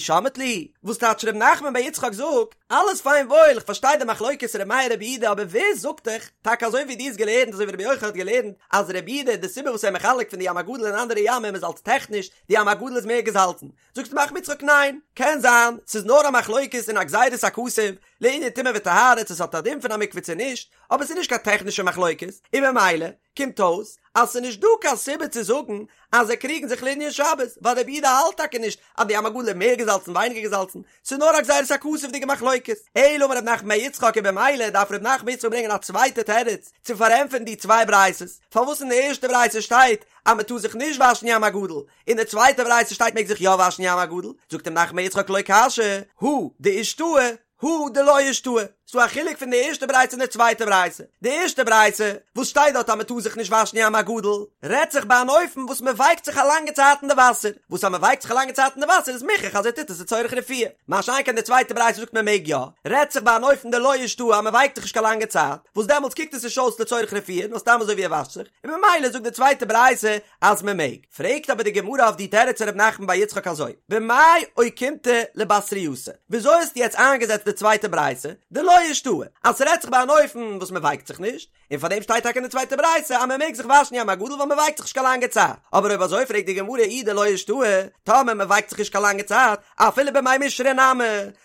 שמעת להו, וואס טייטש ר' נחמן בר יצחק זאגט, אלעס פיין וואויל, איך פארשטיי די מחלוקת ר' מאיר רבי יהודה אבער ווער זאגט דיך, טאקע אזוי ווי דו האסט געלערנט אזוי ווי רבי יוחנן האט געלערנט אז רבי יהודה די סיבה וואס ער מחלק פון די ים הגדול און אנדערע ימים איז אלס טעכניש די ים הגדול איז מער געזאלצן, זאגט ר' נחמן בר יצחק ניין, קען זיין ס'איז נאר א מחלוקת אין א גזירת הכתוב לענין טומאה וטהרה צו ס'האט א דין פון א מקווה צו נישט, אבער ס'איז נישט קיין טעכנישע מחלוקת, און במילא קומט אויס אז ס'איז נישט דא קיין סיבה צו זאגן אז זיי קריגן זיך לענין שבת, ווייל רבי יהודה האלט טאקע נישט אז די ים הגדול איז מער געזאלצן ווייניגער געזאלצן, ס'איז נאר א גזירת הכתוב'דיגע מחלוקת. אלא אמר ר' נחמן בר יצחק און במילא דארף ר' נחמן בר יצחק ברענגען א צווייטע תירוץ צו פארענטפערן די צוויי ברייתות, פארוואס אין די ערשטע ברייתא שטייט אז מ'טאר זיך נישט וואשן ים הגדול, אין די צווייטע ברייתא שטייט מעג זיך יא וואשן ים הגדול, זאגט ר' נחמן בר יצחק לא קשיא, הא דאישתהי, הא דלא אישתהי, ס'דא א חילוק פון די ערשטע ברייתא און די צווייטע ברייתא. די ערשטע ברייתא, וואס שטייט דארט אז מ'טאר זיך נישט וואשן ים הגדול, רעדט זיך ביי אן אופן וואס מ'ווייקט זיך א לאנגע צייט אין די וואסער, וואס אז מ'ווייקט זיך א לאנגע צייט אין די וואסער איז מוכרח אז ער טוט עס לצורך רפואה. מה שאין כן די צווייטע ברייתא זאגט מ'מעג יא, רעדט זיך ביי אן אופן דלא אישתהי אז מ'ווייקט זיך נישט קיין לאנגע צייט, וואס דעמאלטס קוקט עס נישט אויס לצורך רפואה נאר סתם אזוי ווי ער וואשט זיך, און ממילא זאגט די צווייטע ברייתא אז מען מעג. פרעגט אבער די גמרא אויף די תירוץ ר' נחמן בר יצחק אזוי, במאי אוקימתא לבתרייתא, וויאזוי האסטו יעצט איינגעזעצט די צווייטע ברייתא, דלא אישתהי, אז ס'רעדט זיך ביי אן אופן וואס מען ווייקט זיך נישט, און פאר דעם שטייט טאקע אין די צווייטע ברייתא אז מען מעג זיך וואשן ים הגדול ווייל מען ווייקט זיך נישט קיין לאנגע צייט, אבער אויב אזוי פרעגט די גמרא אי דלא אישתהי, טאמער מען ווייקט זיך נישט קיין לאנגע צייט, אפילו במי משרה נמי,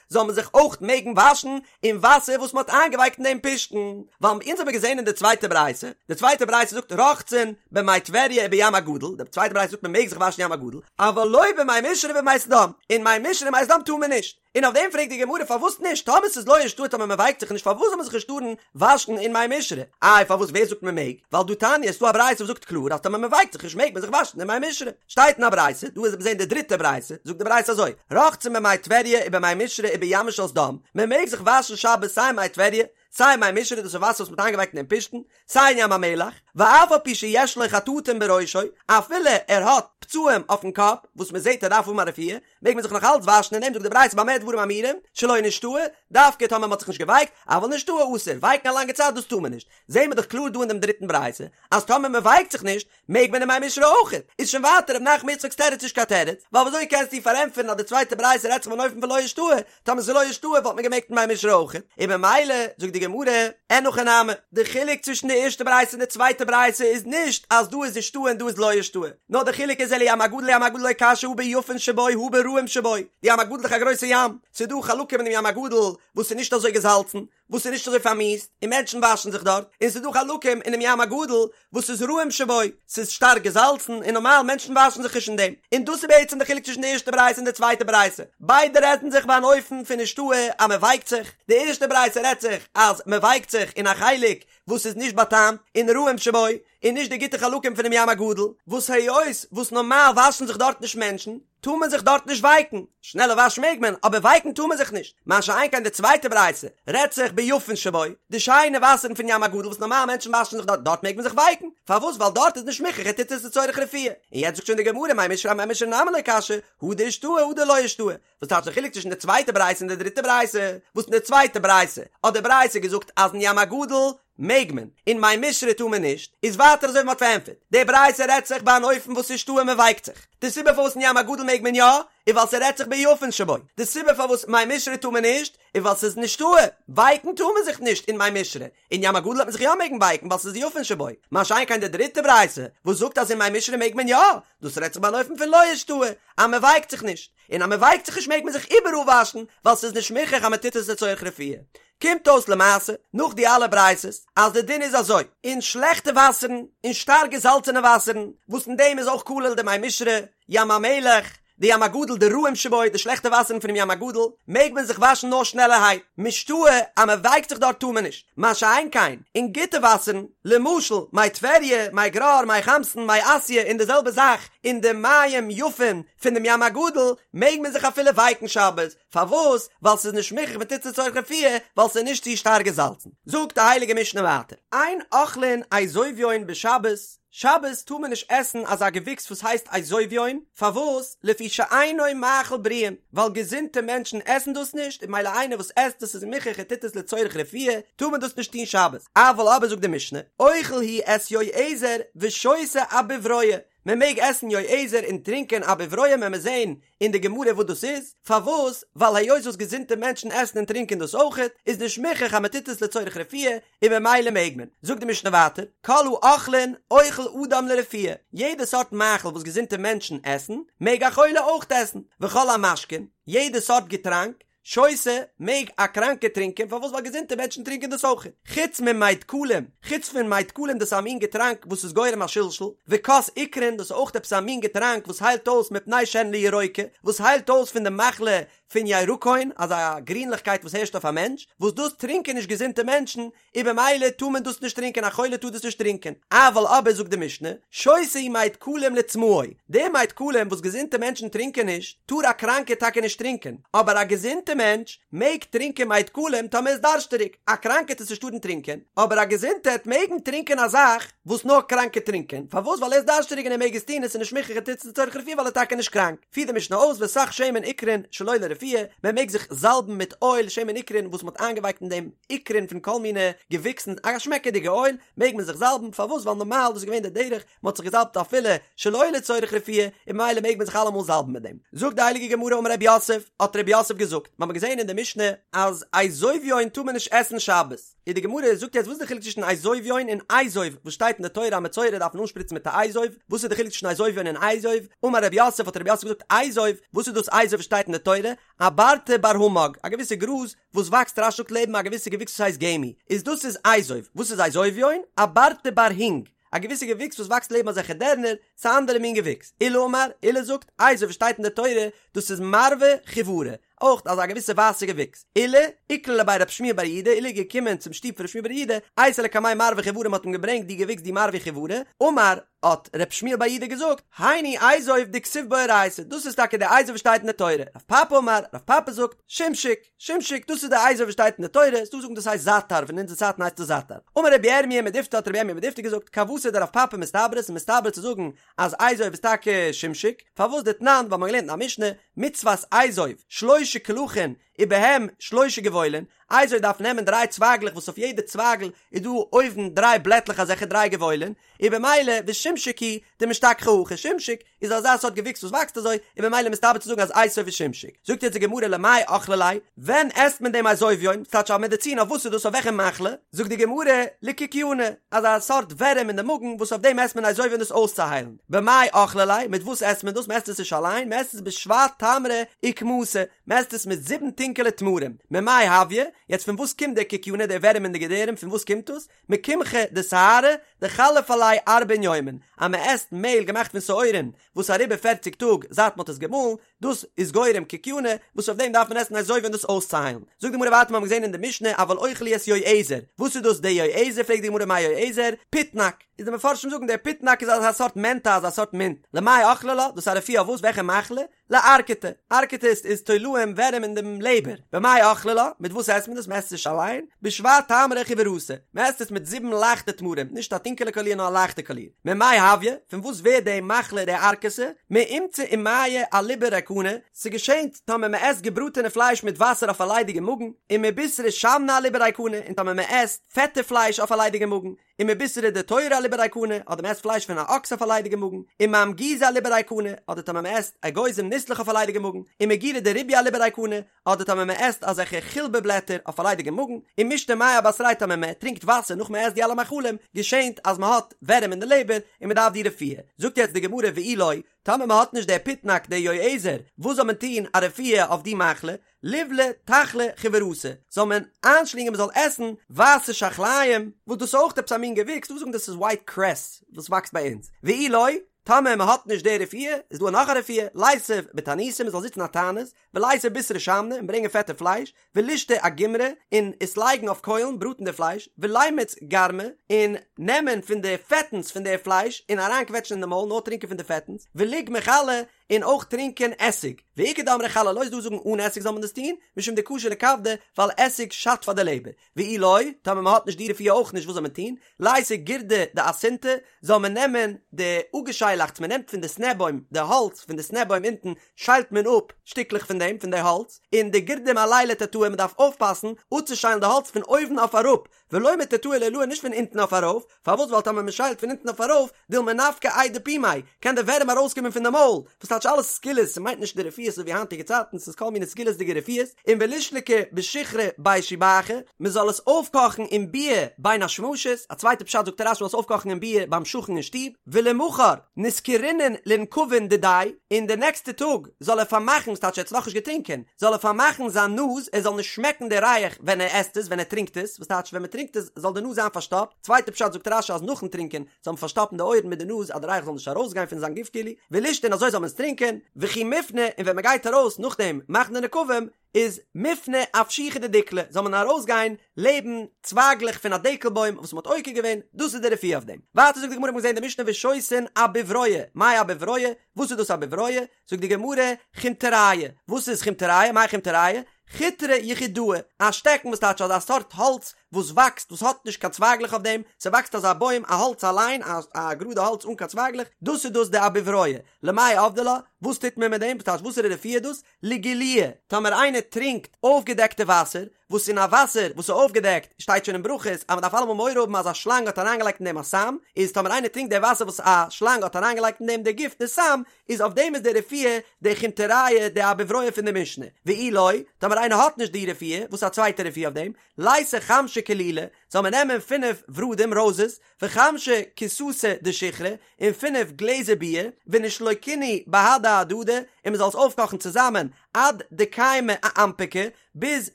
זאל מען זיך אויך מעגן וואשן אין וואסער וואס מען האט איינגעווייקט אין דעם פשתן, ווייל אונז האבן געזען אין די צווייטע ברייתא, די צווייטע ברייתא זאגט רוחצין במי טבריה ובים הגדול, די צווייטע ברייתא זאגט מען מעג זיך וואשן ים הגדול, אבל לא במי משרה ובמי סדום, אין מי משרה און מי סדום טאר מען נישט, און אויף דעם פרעגט די גמרא פארוואס נישט, טאמער ס'איז לא אישתהי טאמער מען ווייקט זיך נישט פארוואס זאל מען זיך נישט טארן וואשן אין מי משרה, איי פארוואס ווער זאגט מען מעג, ווייל דהא תניא ס'דא א ברייתא וואס זאגט קלאר אז טאמער מען ווייקט זיך נישט מעג מען זיך וואשן אין מי משרה. שטייט אין א ברייתא, דא איז מיר זעהן די דריטע ברייתא, זאגט די ברייתא אזוי, רוחצין במי טבריה ובמי משרה ובימה של סדום, מען מעג זיך וואשן שבת סיי אין מי טבריה, סיי אין מי משרה, דאס איז וואסער וואס מען האט איינגעווייקט אין דעם פשתן, סיי אין ים המלח, ואף על פי שיש לו חטטים בראשו, אפילו ער האט פצעים אויפן קאפ, וואס מען זעהט ער דארף האבן א רפואה, מעג מען זיך נאך אלץ וואשן אין דעם, זאגט די ברייתא במה דברים אמורים, שלא נשתהו, דווקא טאמער מען האט זיך נישט געווייקט, אבל נשתהו אסור, ווייקן א לאנגע צייט דאס טאר מען נישט, זעהן מיר דאך קלאר דא אין דעם דריטן ברייתא, אז טאמער מען ווייקט זיך נישט, מעג מען אין מי משרה אויך? איז שוין ווייטער ר' נחמן יצחק'ס תירוץ נישט קיין תירוץ, ווייל וויאזוי קענסטו פארענטפערן אז די צווייטע ברייתא רעדט זיך פון אן אופן פון לא אישתהי, טאמער ס'איז לא אישתהי וואלט מען געמעגט אין מי משרה אויך, און במילא זאגט די גמרא, אין הכי נמי, די חילוק צווישן די ערשטע ברייתא און די צווייטע ברייתא איז נישט אז דא איז אישתהי און דא איז לא אישתהי, נאר די חילוק איז אלא ים הגדול ים הגדול לא קשיא הא ביפין שבו הא ברעים שבו, די ים הגדול איז דאך א גרויסע ים, ס'איז דא חלקים אין דעם ים הגדול וואס איז נישט אזוי געזאלצן, וואס איז נישט אזוי פארמיאוסט און מענטשן וואשן זיך דארט, און ס'איז דא חלקים אינעם ים הגדול וואס איז רעים שבו, ס'איז שטארק געזאלצן און נארמאל מענטשן וואשן זיך נישט אין דעם, און דאס איז בעצם די חילוק צווישן די ערשטע ברייתא און די צווייטע ברייתא, ביידע רעדן זיך ביי אן אופן פון אישתהי אז מען ווייקט זיך, די ערשטע ברייתא רעדט זיך אז מען ווייקט זיך אין א חלק וואס איז נישט באטעמט און רעים שבו, און נישט די גוטע חלקים פונעם ים הגדול, וואס היות וואס נארמאל וואשן זיך דארט נישט מענטשן, טאר מען זיך דארט נישט ווייקן, שנעלע וואש מעג מען, אבער ווייקן טאר מען זיך נישט, מה שאין כן די צווייטע ברייתא רעדט זיך ביפין שבו, די שיינע וואסערן פון ים הגדול וואס נארמאל מענטשן וואשן זיך דארט, דארט מעג מען זיך ווייקן, פארוואס ווייל דארט איז נישט מוכרח ער טוט עס לצורך רפואה, און יעצט זאגט שוין די גמרא מי משרה אמי משרה נמי לא קשיא, הא דאישתהי הא דלא אישתהי, וואס טייטש די חילוק צווישן די צווייטע ברייתא און די דריטע ברייתא, וואס אין די צווייטע ברייתא האט די ברייתא געזאגט אז אין ים הגדול. מעג מען, אין מי מישרי טאר מען נישט, איז ווייטער אזוי ווי מ'האט פארענטפערט, די ברייתא רעדט זיך ביי אן אופן וואס איז השתהי מ'ווייקט זיך, די סיבה פארוואס אין ים הגדול מעג מען יא, איז ווייל ס'רעדט זיך ביפין שבו, די סיבה פארוואס מי מישרי טאר מען נישט, איז ווייל ס'איז השתהי, ווייקן טאר מען זיך נישט אין מי מישרי, אין ים הגדול וועט מען זיך יא מעגן ווייקן ווייל ס'איז יפין שבו, מה שאין כן די דריטע ברייתא וואס זאגט אז אין מי מישרי מעג מען יא, דאס רעדט זיך ביי אן אופן פון לא השתהי, אז מ'ווייקט זיך נישט, און אז מ'ווייקט זיך נישט מעג מען זיך איבעראל וואשן ווייל ס'איז נישט מוכרח אז מ'טוט עס לצורך רפואה. קומט אויס למעשה, נאך די אלע ברייתות, אז די דין איז אזוי, אין שלעכטע וואסערן, אין שטארק געזאלצענע וואסערן, וואס אין דעם איז אויך כולל די מי מישרי, ים המלח, די ים הגדול די רעים שבו, די שלעכטע וואסערן פונעם ים הגדול, מעג מען זיך וואשן נאר שנעלערהייט, משתהי אז מען ווייקט זיך דארט טאר מען נישט, מה שאין כן אין גוטע וואסערן, למשל מי טבריה, מי גרר, מי חמתן, מי אסיא, און די זעלבע זאך אין די מים יפים פון דעם ים הגדול, מעג מען זיך אפילו ווייקן שבת, פארוואס? ווייל ס'איז נישט מוכרח מ'טוט עס לצורך רפואה, ווייל ס'איז נישט צו שטארק געזאלצן. זאגט די הייליגע משנה ווייטער, אין אוכלין אזוביון בשבת, שבת טאר מען נישט עסן אזא געוויקס וואס הייסט אזוביון, פארוואס? לפי שאינו מאכל בריאים, ווייל געזונטע מענטשן עסן דאס נישט, און ממילא איינער וואס עסט דאס איז מוכרח ער טוט עס לצורך רפואה, טאר מען דאס נישט טון שבת. אבל אבער זאגט די משנה, אוכל הוא את יועזר ושותה אבוברואה, מען מעג עסן יועזר און טרינקען אבוברואה וועלן מיר זעהן אין די גמרא וואס דאס איז, פארוואס? ווייל היות וואס געזונטע מענטשן עסן און טרינקען דאס אויכעט, איז נישט מוכרח אז מען טוט עס לצורך רפואה, און ממילא מעג מען. זאגט די משנה ווייטער, כל האוכלין אוכל אדם לרפואה, יעדע סארט מאכל וואס געזונטע מענטשן עסן, מעג א חולה אויך עסן, וכל המשקין, יעדע סארט געטראנק, שותה, מעג א קראנקער טרינקען, פארוואס ווייל געזונטע מענטשן טרינקען דאס אויך, חוץ ממי דקלים, חוץ פון מי דקלים דאס איז א מין געטראנק וואס איז גורם א שלשול, וכוס עיקרין דאס איז אויך עפעס א מין געטראנק וואס היילט אויס מפני שהן לירוקה, וואס היילט אויס פון די מחלה פון ירקון, אזא גרינליכקייט וואס הערשט אויף א מענטש, וואס דאס טרינקען נישט געזונטע מענטשן, און במילא טאר מען דאס נישט טרינקען, א חולה טאר דאס נישט טרינקען, אבל אבער זאגט די משנה, שותה הוא מי דקלים לצמאו, די מי דקלים וואס געזונטע מענטשן טרינקען נישט, טאר א קראנקער טאקע נישט טרינקען, אבער א געזונטע מענטש מעג טרינקען מי דקלים טאמער איז דארשטעריג, א קראנקער טאר עס נישט טארן טרינקען, אבער א געזונטער העט מעגן טרינקען א זאך וואס נאר קראנקע טרינקען, פארוואס ווייל ער איז דארשטעריג און ער מעג עס טון און ס'איז נישט מוכרח ער טוט עס לצורך רפואה ווייל ער איז טאקע נישט קראנק. פירט די משנה אויס וסך שמן עיקרין שלא לרפואה, מען מעג זיך זאלבן מיט אויל שמן עיקרין וואס מען האט איינגעווייקט אין דעם עיקרין פון כל מיני געוויקסן, א שמעקעדיגע אויל, מעג מען זיך זאלבן, פארוואס ווייל נארמאל דאס איז געווען די דרך, מען האט זיך געזאלבט אפילו שלא לצורך רפואה, און ממילא מעג מען זיך אלעמאל זאלבן מיט דעם. זאגט די הייליגע גמרא אמר רב יוסף, האט רב יוסף געזאגט, מיר האבן געזען אין די משנה אז אזוביון טאר מען נישט עסן שבת, איז די גמרא זאגט יעצט וואס איז די חילוק צווישן אזוביון און אזוב וואס שטייט אין די תורה אז מצורע דארף מען אנשפריצן מיט א אזוב, וואס איז די חילוק צווישן אזוביון און אזוב, אמר רב יוסף האט רב יוסף געזאגט אזוב, וואס איז דאס אזוב וואס שטייט אין די תורה, אברתא בר המג, א געוויסע גראז וואס וואקסט רש"י זאגט לעבן א געוויסע געוויקס וואס הייסט גמי, איז דאס איז אזוב, וואס איז אזוביון, אברתא בר הינג, א געוויסע געוויקס וואס וואקסט לעבן אזעלכע דערנער, ס'איז א אנדערע מין געוויקס, עולא אמר, עולא זאגט, אזוב וואס שטייט אין די תורה, דאס איז מרווה חיורא, אויך אזא געוויסע ווייסע געוויקס. עולא, איקלע לבי רב שמואל בר יהודה, עולא איז געקומען צום שטוב פון רב שמואל בר יהודה, אייתי לקמיה מרווה חיורא מ'האט אים געברענגט די געוויקס די מרווה חיורא, אמר, האט רב שמואל בר יהודה געזאגט, היינו אזוב דכתיב באורייתא, דאס איז טאקע די אזוב וואס שטייט אין די תורה, רב פפא אמר, רב פפא זאגט, שמשק, שמשק, דאס איז די אזוב וואס שטייט אין די תורה, ס'דא וואס זאגן דאס הייסט זאטאר, פון אונזער צייטן הייסט עס זאטאר. אמר רבי ירמיה מדיפתי האט רבי ירמיה מדיפתי געזאגט, כוותיה דרב פפא מסתברא, ס'איז מסתבר צו זאגן אז אזוב איז טאקע שמשק, פארוואס דתנן, ווייל מ'האט געלערנט אין א משנה, מצות אזוב, שלשה קלחין, ובהם שלשה גבעולין, אזוב דארף נעמען דריי צווייגלעך וואס אויף יעדע צווייגל איז דא אויבן דריי בלעטלעך אזעלכע דריי גבעולין, און במילא ושמשק הוא דמשתכחי הכי, שמשק איז אזא סארט געוויקס וואס וואקסט אזוי, און במילא מסתבר צו זאגן אז אזוב איז שמשק. זאגט יעצט די גמרא למאי אכלי ליה, ווען עסט מען דעם אזוביון, ס'טייטש א מעדעצין אויף וואס איז דאס אויף וועלכע מחלה? זאגט די גמרא לקיקיונא, אזא סארט ווערים אין די מאגן וואס אויף דעם עסט מען אזוביון דאס אויסצוהיילן. במאי אכלי ליה, מיט וואס עסט מען דאס? מ'עסט עס נישט אליין, מ'עסט עס בשבע תמרי אוכמתא, מ'עסט עס מיט זיבן טונקעלע תמרים. ממאי הויא, יעצט פון וואס קומט דער קיקיונא, דער ווערים אין די געדערים, פון וואס קומט דאס? מקמחא דשערי דחליף עליה ארבעין יומין, אז מ'עסט מעהל געמאכט פון שעורים וואס איז אריבער פערציג טאג זייט מ'האט עס געמאלן, דאס איז גורם קיקיונא, וואס אויף דעם דארף מען עסן אזוביון דאס אויסצוהיילן. זאגט די גמרא ווייטער מיר האבן געזען אין די משנה אבל אוכל הוא את יועזר, וואס איז דאס די יועזר פרעגט די גמרא מאי יועזר, פיטנק, איז די מפרשים זאגן דער פיטנק איז אזא סארט מענטע אזא סארט מינט, למאי אכלי לה, דאס איז א רפואה אויף וואס וועלכע מחלה? לארקתא, ארקתא איז איז תולעים ווערים אין דעם לעבער, במאי אכלי לה, מיט וואס עסט מען דאס, מען עסט עס נישט אליין, בשבע תמרי חיורתא, מען עסט עס מיט זיבן לייכטע תמרים, נישט א. טונקעלע קאליר נאר א לייכטע קאליר. ממאי הויא, פון וואס ווערט די מחלה די ערקתא? מאומצא ומיא אליבא ריקנא, ס'געשענט טאמער מ'עסט געבראטענע פלייש מיט וואסער אויף א ליידיגע מאגן, ומבישרא שמנא אליבא ריקנא, און טאמער מ'עסט פעטע פלייש אויף א ליידיגע מאגן, ומבישרא דתורא אליבא ריקנא, אדער מ'עסט פלייש פון א אקס אויף א ליידיגע מאגן, ומאמגוזא אליבא ריקנא, אדער טאמער מ'עסט אגוזים ניסלעך אויף א ליידיגע מאגן, ומגירא דריביא אליבא ריקנא, אדער טאמער מ'עסט אזעלכע חילבה בלעטער אויף א ליידיגע מאגן, ומשתי מיא אבתריה טאמער מ'טרינקט וואסער נאך מ'עסט די אלע מאכלים, געשענט אז מ'האט ווערים אין די לעבער און מ'דארף די רפואה. זאגט יעצט די גמרא ואי לא, טאמער מ'האט נישט די פיטנאק די יועזר, וואס זאל מען טון א רפואה אויף די מחלה? ליבלע תחלא חיוורתא, זאל מען איינשלינגען מ'זאל עסן ווייסע שחליים, וואס דאס איז אויך עפעס א מין געוויקס, דא זאגן דאס איז ווייט קרעס וואס וואקסט ביי אונז, ואי לא, טאמער מ'האט נישט די רפואה, איז דא נאך א רפואה, ליתיב בתעניתא מ'זאל זיצן א תענית, וליתי בישרא שמנא און ברענגען פעטע פלייש, ולישתי אגומרי, און עס לייגן אויף קוילן, בראטן די פלייש, ולימיץ גרמא, און נעמען פון די פעטנס פון די פלייש און אריינקוועטשן אין די מויל, נאר טרינקען פון די פעטנס, וליגמע חלא, און אויך טרינקען עסיג. ואיכא דאמרי חלא לא, ס'איז דא זאגן אן עסיג זאל מען דאס טון, משום דקשי לכבדא, ווייל עסיג שאדט פאר די לעבער. ואי לא, טאמער מען האט נישט די רפואה אויך נישט וואס זאל מען טון? ליתי גירדא דאסינתא, זאל מען נעמען די אפגעשיילאכטס מען נעמט פון די סנע בוים, די האלץ פון די סנע בוים אונטן שיילט מען אפ שטיקלעך פון דעם פון די האלץ, און די גירדא מעליה לתתאי מען דארף אויפפאסן אפצושיילן די האלץ פון אויבן אויף אראפ, ולא מתתאי לעילאי נישט פון אונטן אויף ארויף, פארוואס ווייל טאמער מען שיילט פון אונטן אויף ארויף, דילמא נפקא איידי פומיה, קען די ווערים ארויסקומען פון די מויל, וואס טייטש אלעס סגולות, ס'מיינט נישט די רפואות אזוי ווי היינטיגע צייטן, ס'איז כל מיני סגולות'דיגע רפואות, און ולישלקה בשיכרא בי שיבחא, מען זאל עס אויפקאכן אין ביר בין השמשות, א צווייטע פשט זאגט רש"י מען זאל עס אויפקאכן אין ביר ביים שכן אין שטוב, ולמחר נסכרינן לנקבין דידיה, און די נעקסטע טאג זאל ער פארמאכן, ס'טייטש ער האט עס נאכנישט געטרינקען, זאל ער פארמאכן זיין נאז ער זאל נישט שמעקן די ריח ווען ער עסט עס, ווען ער טרינקט עס, וואס טייטש ווען מען טרינקט עס זאל די נאז זיין פארשטאפט, צווייטע פשט זאגט רש"י אז נאכן טרינקען זאל מען פארשטאפן די אויערן מיט די נאז אז די ריח זאל נישט ארויסגיין פון זיין גוף כאילו, ולישתי און אזוי זאל מען עס טרינקען, וכי מפני און ווען מען גייט ארויס נאכדעם מאכן די נקבים איז מפנה אפשיחא דדיקלא זאל מען ארויסגיין לעבן צווייגלעך פון א דקל בוים וואס מען האט עוקר געווען, דאס איז די רפואה אויף דעם. ווייטער זאגט די גמרא מיר האבן געזען די משנה ושותין אבוברואה, מאי אבוברואה? וואס איז דאס אבוברואה? זאגט די גמרא, חומטריא, וואס איז חומטריא? מאי חומטריא? חוטרא יחידאה, א שטעקן וואס טייטש אזא סארט האלץ וואס וואקסט וואס האט נישט קיין צווייגלעך אויף דעם, ס'וואקסט אזא בוים א האלץ אליין א א גראדע האלץ אן קיין צווייגלעך, דאס איז דאס די אבוברואה, למאי עבדי לה, וואס טוט מען מיט דעם, וואס טייטש וואסערע רפואה איז דאס? לגילויא, טאמער איינער טרינקט אויפגעדעקטע וואסער, וואס אין א וואסער וואס איז אויפגעדעקט שטייט שוין אין ברכות אז מען דארף אלעמאל מורא האבן אז א שלאנג האט אריינגעלייגט אין דעם א סם, איז טאמער איינער טרינקט די וואסער וואס א שלאנג האט אריינגעלייגט אין דעם די גיפט די סם, איז אויף דעם איז די רפואה די חומטריא די אבוברואה פון די משנה, ואי לא, טאמער איינער האט נישט די רפואה, וואס איז א צווייטע רפואה אויף דעם, ליתי חמשא כלילי, זאל מען נעמען פינף ורדים, ראוזעס, וחמשא כיסתא דשיכרא, און פינף גלעזער ביר, ונישלוקינהו בהדי הדדי, און מען זאל עס אויפקאכן צוזאמען עד דקיימא אאנפקא, ביז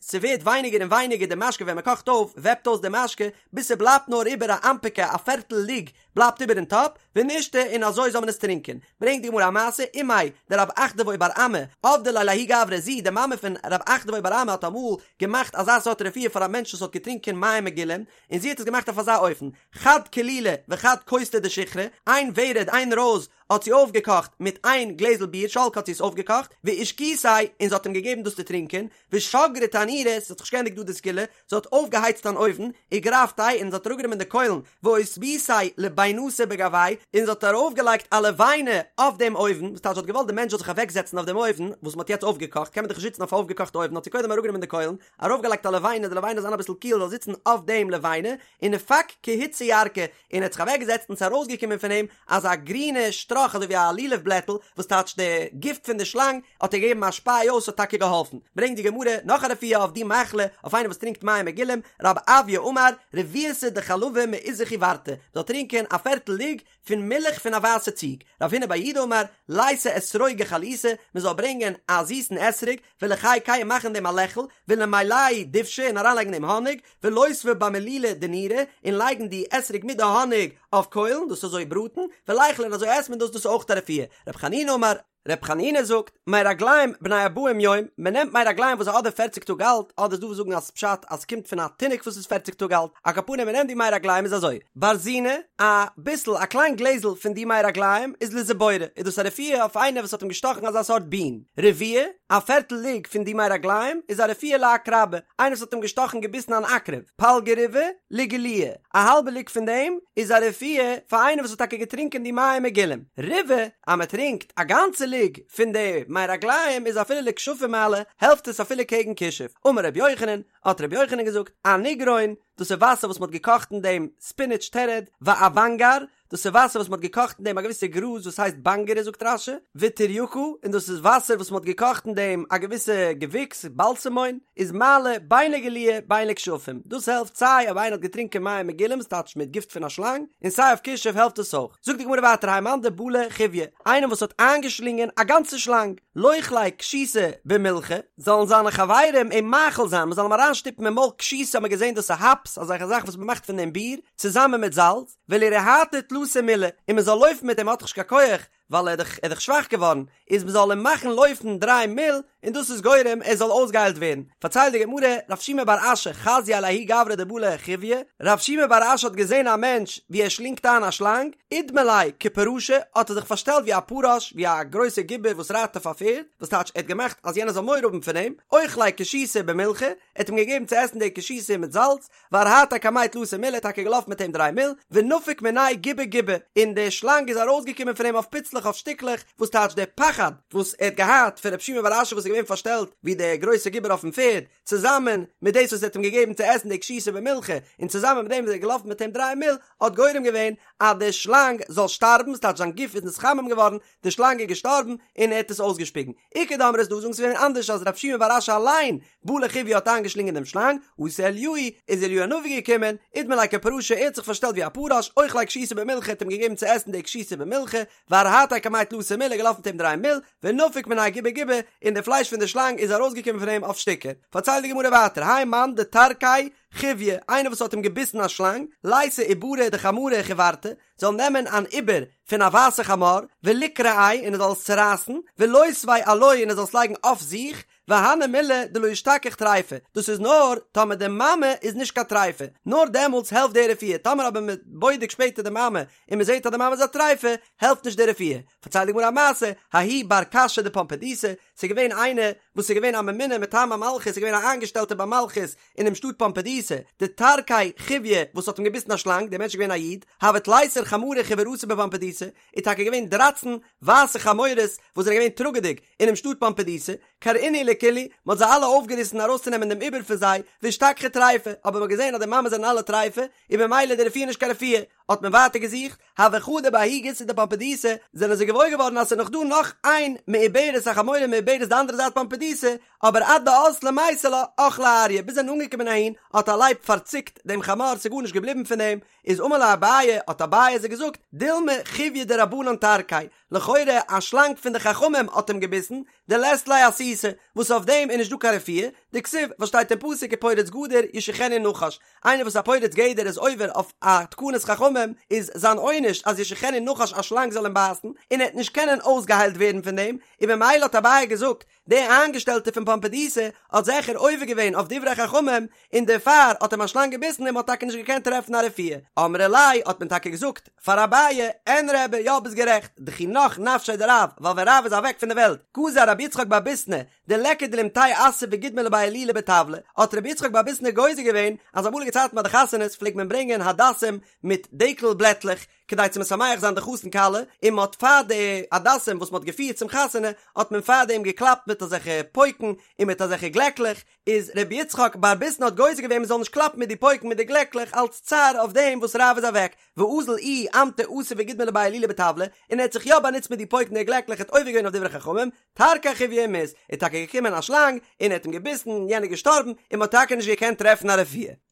ס'ווערט ווייניגער און ווייניגער די משקה ווען מ'קאכט אויף וועפט אויס די משקה, ביז ס'בלייבט נאר איבער א אנפקא א פערטל לוג בלייבט איבער אין טאפ, ונישתי און אזוי זאל מען עס טרינקען. ברענגט די גמרא א מעשה, אימיה דרב אחדבוי בר אמי, עבדה ליה לההוא גברא, זי, די מאמע פון רב אחדבוי בר אמי האט אמאל געמאכט אזא סארט רפואה פאר א מענטש וואס האט געטרינקען מים מגולים, און זי האט עס געמאכט אויף אזא אופן, חד כלילא וחד כוסתא דשיכרא, איין ורד, איין רויז, האט זי אויפגעקאכט מיט איין גלעזל ביר, שלקה האט זי עס אויפגעקאכט, ואשקיתיה, און זי האט אים געגעבן דאס צו טרינקען, ושגרה תנורא, ס'האט זיך נישט געענדיגט דא די סגולה, זי האט אויפגעהייצט אן אויוון, וגרפתיה, און זי האט אראפגענומען די קוילן, ואותביתיה לבינתא בגויה, און זי האט ארויפגעלייגט א לבנה אויף דעם אויוון, וואס טייטש זי האט געוואלט די מענטש זאל זיך אוועקזעצן אויף דעם אויוון, וואס מ'האט יעצט אויפגעקאכט, קען מען דאך נישט זיצן אויף א אויפגעקאכטע אויוון, האט זי קודם אראפגענומען די קוילן, ארויפגעלייגט א לבנה, די לבנה זאל זיין אביסל קיל, זאל זיצן אויף דעם לבנה, ונפק כי הוצא ירקא, און ער האט זיך אוועקגעזעצט און ס'איז ארויסגעקומען פון אים אזא גרינע שטראך אזוי ווי א לולב בלעטל, וואס טייטש די גיפט פון די שלאנג האט ער געגעבן א שפיי אויס האט טאקע געהאלפן. ברענגט די גמרא נאך א רפואה אויף די מחלה אויף איינער וואס טרינקט מים מגולים, רב אויא אמר, רביעתא דחלבא מעיזא חיורתא, מ'זאל טרינקען א פערטל לוג פון מילך פון א ווייסע ציג, רב הונא בר יהודה אמר, ליתי אתרוגא חליתא, מ'זאל ברענגען א זיסן אתרוג, ולחיקיה און מאכן דעם א לעכל, ולמלייה דובשא און אריינלייגן דעם האניג, ולותביה במלילא דנורא, און לייגן די אתרוג מיט די האניג אויף קוילן, דאס אזוי בראטן, וליכליה און אזוי עסט מען דאס, דאס איז אויך א רפואה. רב חנינא אמר. רב חנינא זאגט, מי רגלים בני ארבעים יום, מען נעמט מי רגלים וואס איז אדער פערציג טאג אלט, אדער איז דא וואס זאגן אז פשט אז ס'קומט פון א תינוק וואס איז פערציג טאג אלט, על כל פנים מען נעמט די מי רגלים איז אזוי, ברזינא, א ביסל א קליין גלעזל פון די מי רגלים איז לזיבורא, איז דאס א רפואה אויף איינער וואס האט אים געשטאכן אזא סארט בין, רביעא. א פערטל לוג פון די מי רגליים איז א רפואה לעקרבא, איינער וואס האט אים געשטאכן געביסן אן עקרב, פלגא ריבעא לגילויא, א האלבע לוג פון דעם איז א רפואה פאר איינער וואס האט טאקע געטרינקען די מים מגולים, ריבעא, אז מען טרינקט א גאנצע לוג פון די מי רגליים איז אפילו לכשפים מעלי, העלפט עס אפילו קעגן כישוף, אמר רבי יוחנן, האט רבי יוחנן געזאגט, אניגרון, דאס איז וואסער וואס מען האט געקאכט אין דעם ספינעטש תרד, ואוונגר, דאס איז וואסער וואס מען האט געקאכט אין דעם א געוויסע גראז וואס הייסט באנגערע זאגט רש"י, וטורייקא, און דאס איז וואסער וואס מען האט געקאכט אין דעם א געוויסע געוויקס, באלסעמוין, איז מעלי בין לגילויא בין לכשפים, דאס העלפט סיי אויב איינער האט געטרינקען מים מגולים ס'טייטש מיט גיפט פון א שלאנג, און סיי אויף כישוף העלפט עס אויך. זאגט די גמרא ווייטער האי מאן דבלע חיויא, איינער וואס האט איינגעשלינגען א גאנצע שלאנג, לוכליה כשיתא במילחא, זאלן זיינע חברים אים מאכיל זיין, מען זאל אים אריינשטופן אין מויל כשיתא האט מען געזען דאס איז האפס, אזעלכע זאכן וואס מען מאכט פון דעם ביר, צוזאמען מיט זאלץ, ולירהטיה תלתא מילי, און מען זאל לויפן מיט אים האט דאך נישט קיין כח, ווייל ער איז דאך שוואך געווארן, איז מען זאל אים מאכן לויפן דריי מיל, און דאס איז גורם ער זאל אויסגעהיילט ווערן. פארציילט די גמרא, רב שימי בר אשי חזייה לההוא גברא דבלע חיויא, רב שימי בר אשי האט געזען א מענטש ווי ער שלינגט איין א שלאנג, אידמי ליה כפרשא, האט ער זיך פארשטעלט ווי א פרש, ווי א גרויסער גיבור וואס רייט אויף א פערד, וואס טייטש ער האט געמאכט אז יענער זאל מורא האבן פון אים, אוכליה כשיתא במילחא, ער האט אים געגעבן צו עסן די כשיתא מיט זאלץ, וארהטיה קמיה תלתא מילי, טאקע געלאפן מיט אים דריי מיל, ונפק מיניה גובי גובי, און די שלאנג איז ארויסגעקומען פון אים אויף פיצלעך אויף שטיקלעך, וואס טייטש דער פחד וואס ער האט געהאט פון רב שימי בר אשי וואס איז געווען פארשטעלט ווי דער גרויסער גיבור אויפן פערד, צוזאמען מיט דאס וואס ער האט אים געגעבן צו עסן די כשיתא במילחא, און צוזאמען מיט דעם וואס ער איז געלאפן מיט אים דריי מיל, האט גורם געווען אז די שלאנג זאל שטארבן, ס'טייטש זיין גוף איז נתחמם געווארן, די שלאנג איז געשטארבן, און ער האט עס אויסגעשפיגן. איכא דאמרי ס'איז דא וואס זאגן ס'איז געווען אנדערש אז רב שימי בר אשי אליין בלע חיויא האט איינגעשלינגען דעם שלאנג, אתא אליהו, איז אליהו הנביא געקומען, אידמי ליה כפרשא, ער האט זיך פארשטעלט ווי א פרש, אוכליה כשיתא במילחא, האט אים געגעבן צו עסן די כשיתא במילחא, וארהטיה קמיה תלתא מילי, געלאפן מיט אים דריי מיל, ונפק מיניה גובי גובי, און די פלייש פון די שלאנג איז ארויסגעקומען פון אים אויף שטיקער. פארציילט די גמרא ווייטער, האי מאן דטרקיה חיויא, איינער וואס האט אים געביסן א שלאנג, לייתי עוברה דחמרא חיורתא, זאל נעמען אן עובר פון א ווייסע חמור, וליקרעיה און ער זאל עס צורייסן, ולותביה עילויה און ער זאל עס לייגן אויף זיך, והני מילי דלא אשתכח טריפה, דאס איז נאר טאמער די מאמע איז נישט קיין טריפה, נאר דעמאלטס העלפט די רפואה, טאמער אבער מען בודק שפעטער די מאמע און מען זעט אז די מאמע איז א טריפה, העלפט נישט די רפואה. פארציילט די גמרא א מעשה, ההוא בר קשא דפומבדיתא, ס'איז געווען איינער וואס איז געווען א ממונה מטעם המלכות, איז געווען א איינגעשטעלטער ביים מלכות אינעם שטאט פומבדיתא, דטרקיה חיויא וואס האט אים געביסן א שלאנג, דער מענטש איז געווען א איד, הוו תליסר חמרי חיורתא בפומבדיתא, איז טאקע געווען דרייצן ווייסע חמורות וואס זענען געווען טראגעדיג אינעם שטאט פומבדיתא, קרעינהו לכולהו, מען האט זיי אלע אויפגעריסן ארויסצונעמען דעם עובר פון זיי, ואשתכחו טריפה, אבער מען האט געזען אז די מאמעס זענען אלע טריפה, איז במילא די רפואה נישט קיין רפואה, האט מען ווייטער געזוכט, הוו חדו בההוא גיסא דפומבדיתא, זענען זיי געוואויר געווארן אז ס'איז נאך דא נאך איין מעוברת א חמורה מעוברת די אנדערע זייט פומבדיתא, אבער עד דאזלו מייתו לה, אכליה אריא, ביז זיי זענען אנגעקומען אהין, האט א לייב פארציקט דעם חמור, ס'איז גארנישט געבליבן פון דעם, איז אמר להו אביי, האט אביי זיי געזאגט, דילמא חיויא דרבנן טרקיה, לכאורה א שלאנג פון די חכמים האט אים געביסן, דלית ליה אסותא, וואס אויף דעם איז נישט דא קיין רפואה, דכתיב, וואס שטייט אין פסוק ופורץ גדר ישכנו נחש, איינער וואס א פורץ גדר איז עובר אויף א תקנת חכמים, איז זיין עונש אז ישכנו נחש א שלאנג זאל אים בייסן, און ער וועט נישט קענען אויסגעהיילט ווערן פון דעם, און במילא האט אביי געזאגט, דער איינגעשטעלטער פון פומבדיתא האט זעכער עובר געווען אויף דברי חכמים, און דערפאר האט אים א שלאנג געביסן און מען האט טאקע נישט געקענט טרעפן א רפואה. אמרי ליה האט מען טאקע געזאגט פאר אביי, אין רבי, יא ביסט גערעכט, דכי נח נפשיה דרב, ווייל ווען רב איז אוועק פון די וועלט, גזר רבי יצחק בר ביסנא, דליכא דלימטייה אסא וגידמא לבי הילולא בטבלא, האט רבי יצחק בר ביסנא גוזר געווען אז אמאליגע צייטן ביי די חתונות פלעגט מען ברענגען הדסים מיט דקל בלעטלעך, כדי צו משמח זיין די חתן כלה, און מען האט פאר די הדסים וואס מען האט געפירט צום חתונה, האט מען פאר דעם געקלאפט מיט אזעלכע פויקן און מיט אזעלכע גלעקלעך, איז רבי יצחק בר ביסנא האט גוזר געווען מען זאל נישט קלאפן מיט די פויקן מיט די גלעקלעך אלץ צער אויף דעם וואס רב איז אוועק, ואזל איהו אמטי אסא וגידמא לבי הילולא בטבלא, און ער האט זיך יא באנוצט מיט די פויקן און די גלעקלעך האט עובר געווען אויף דברי חכמים, טרקיה חיויא ומית, איז טאקע געקומען א שלאנג און ער האט אים געביסן און יענער איז געשטארבן, און מען האט טאקע נישט געקענט טרעפן א רפואה.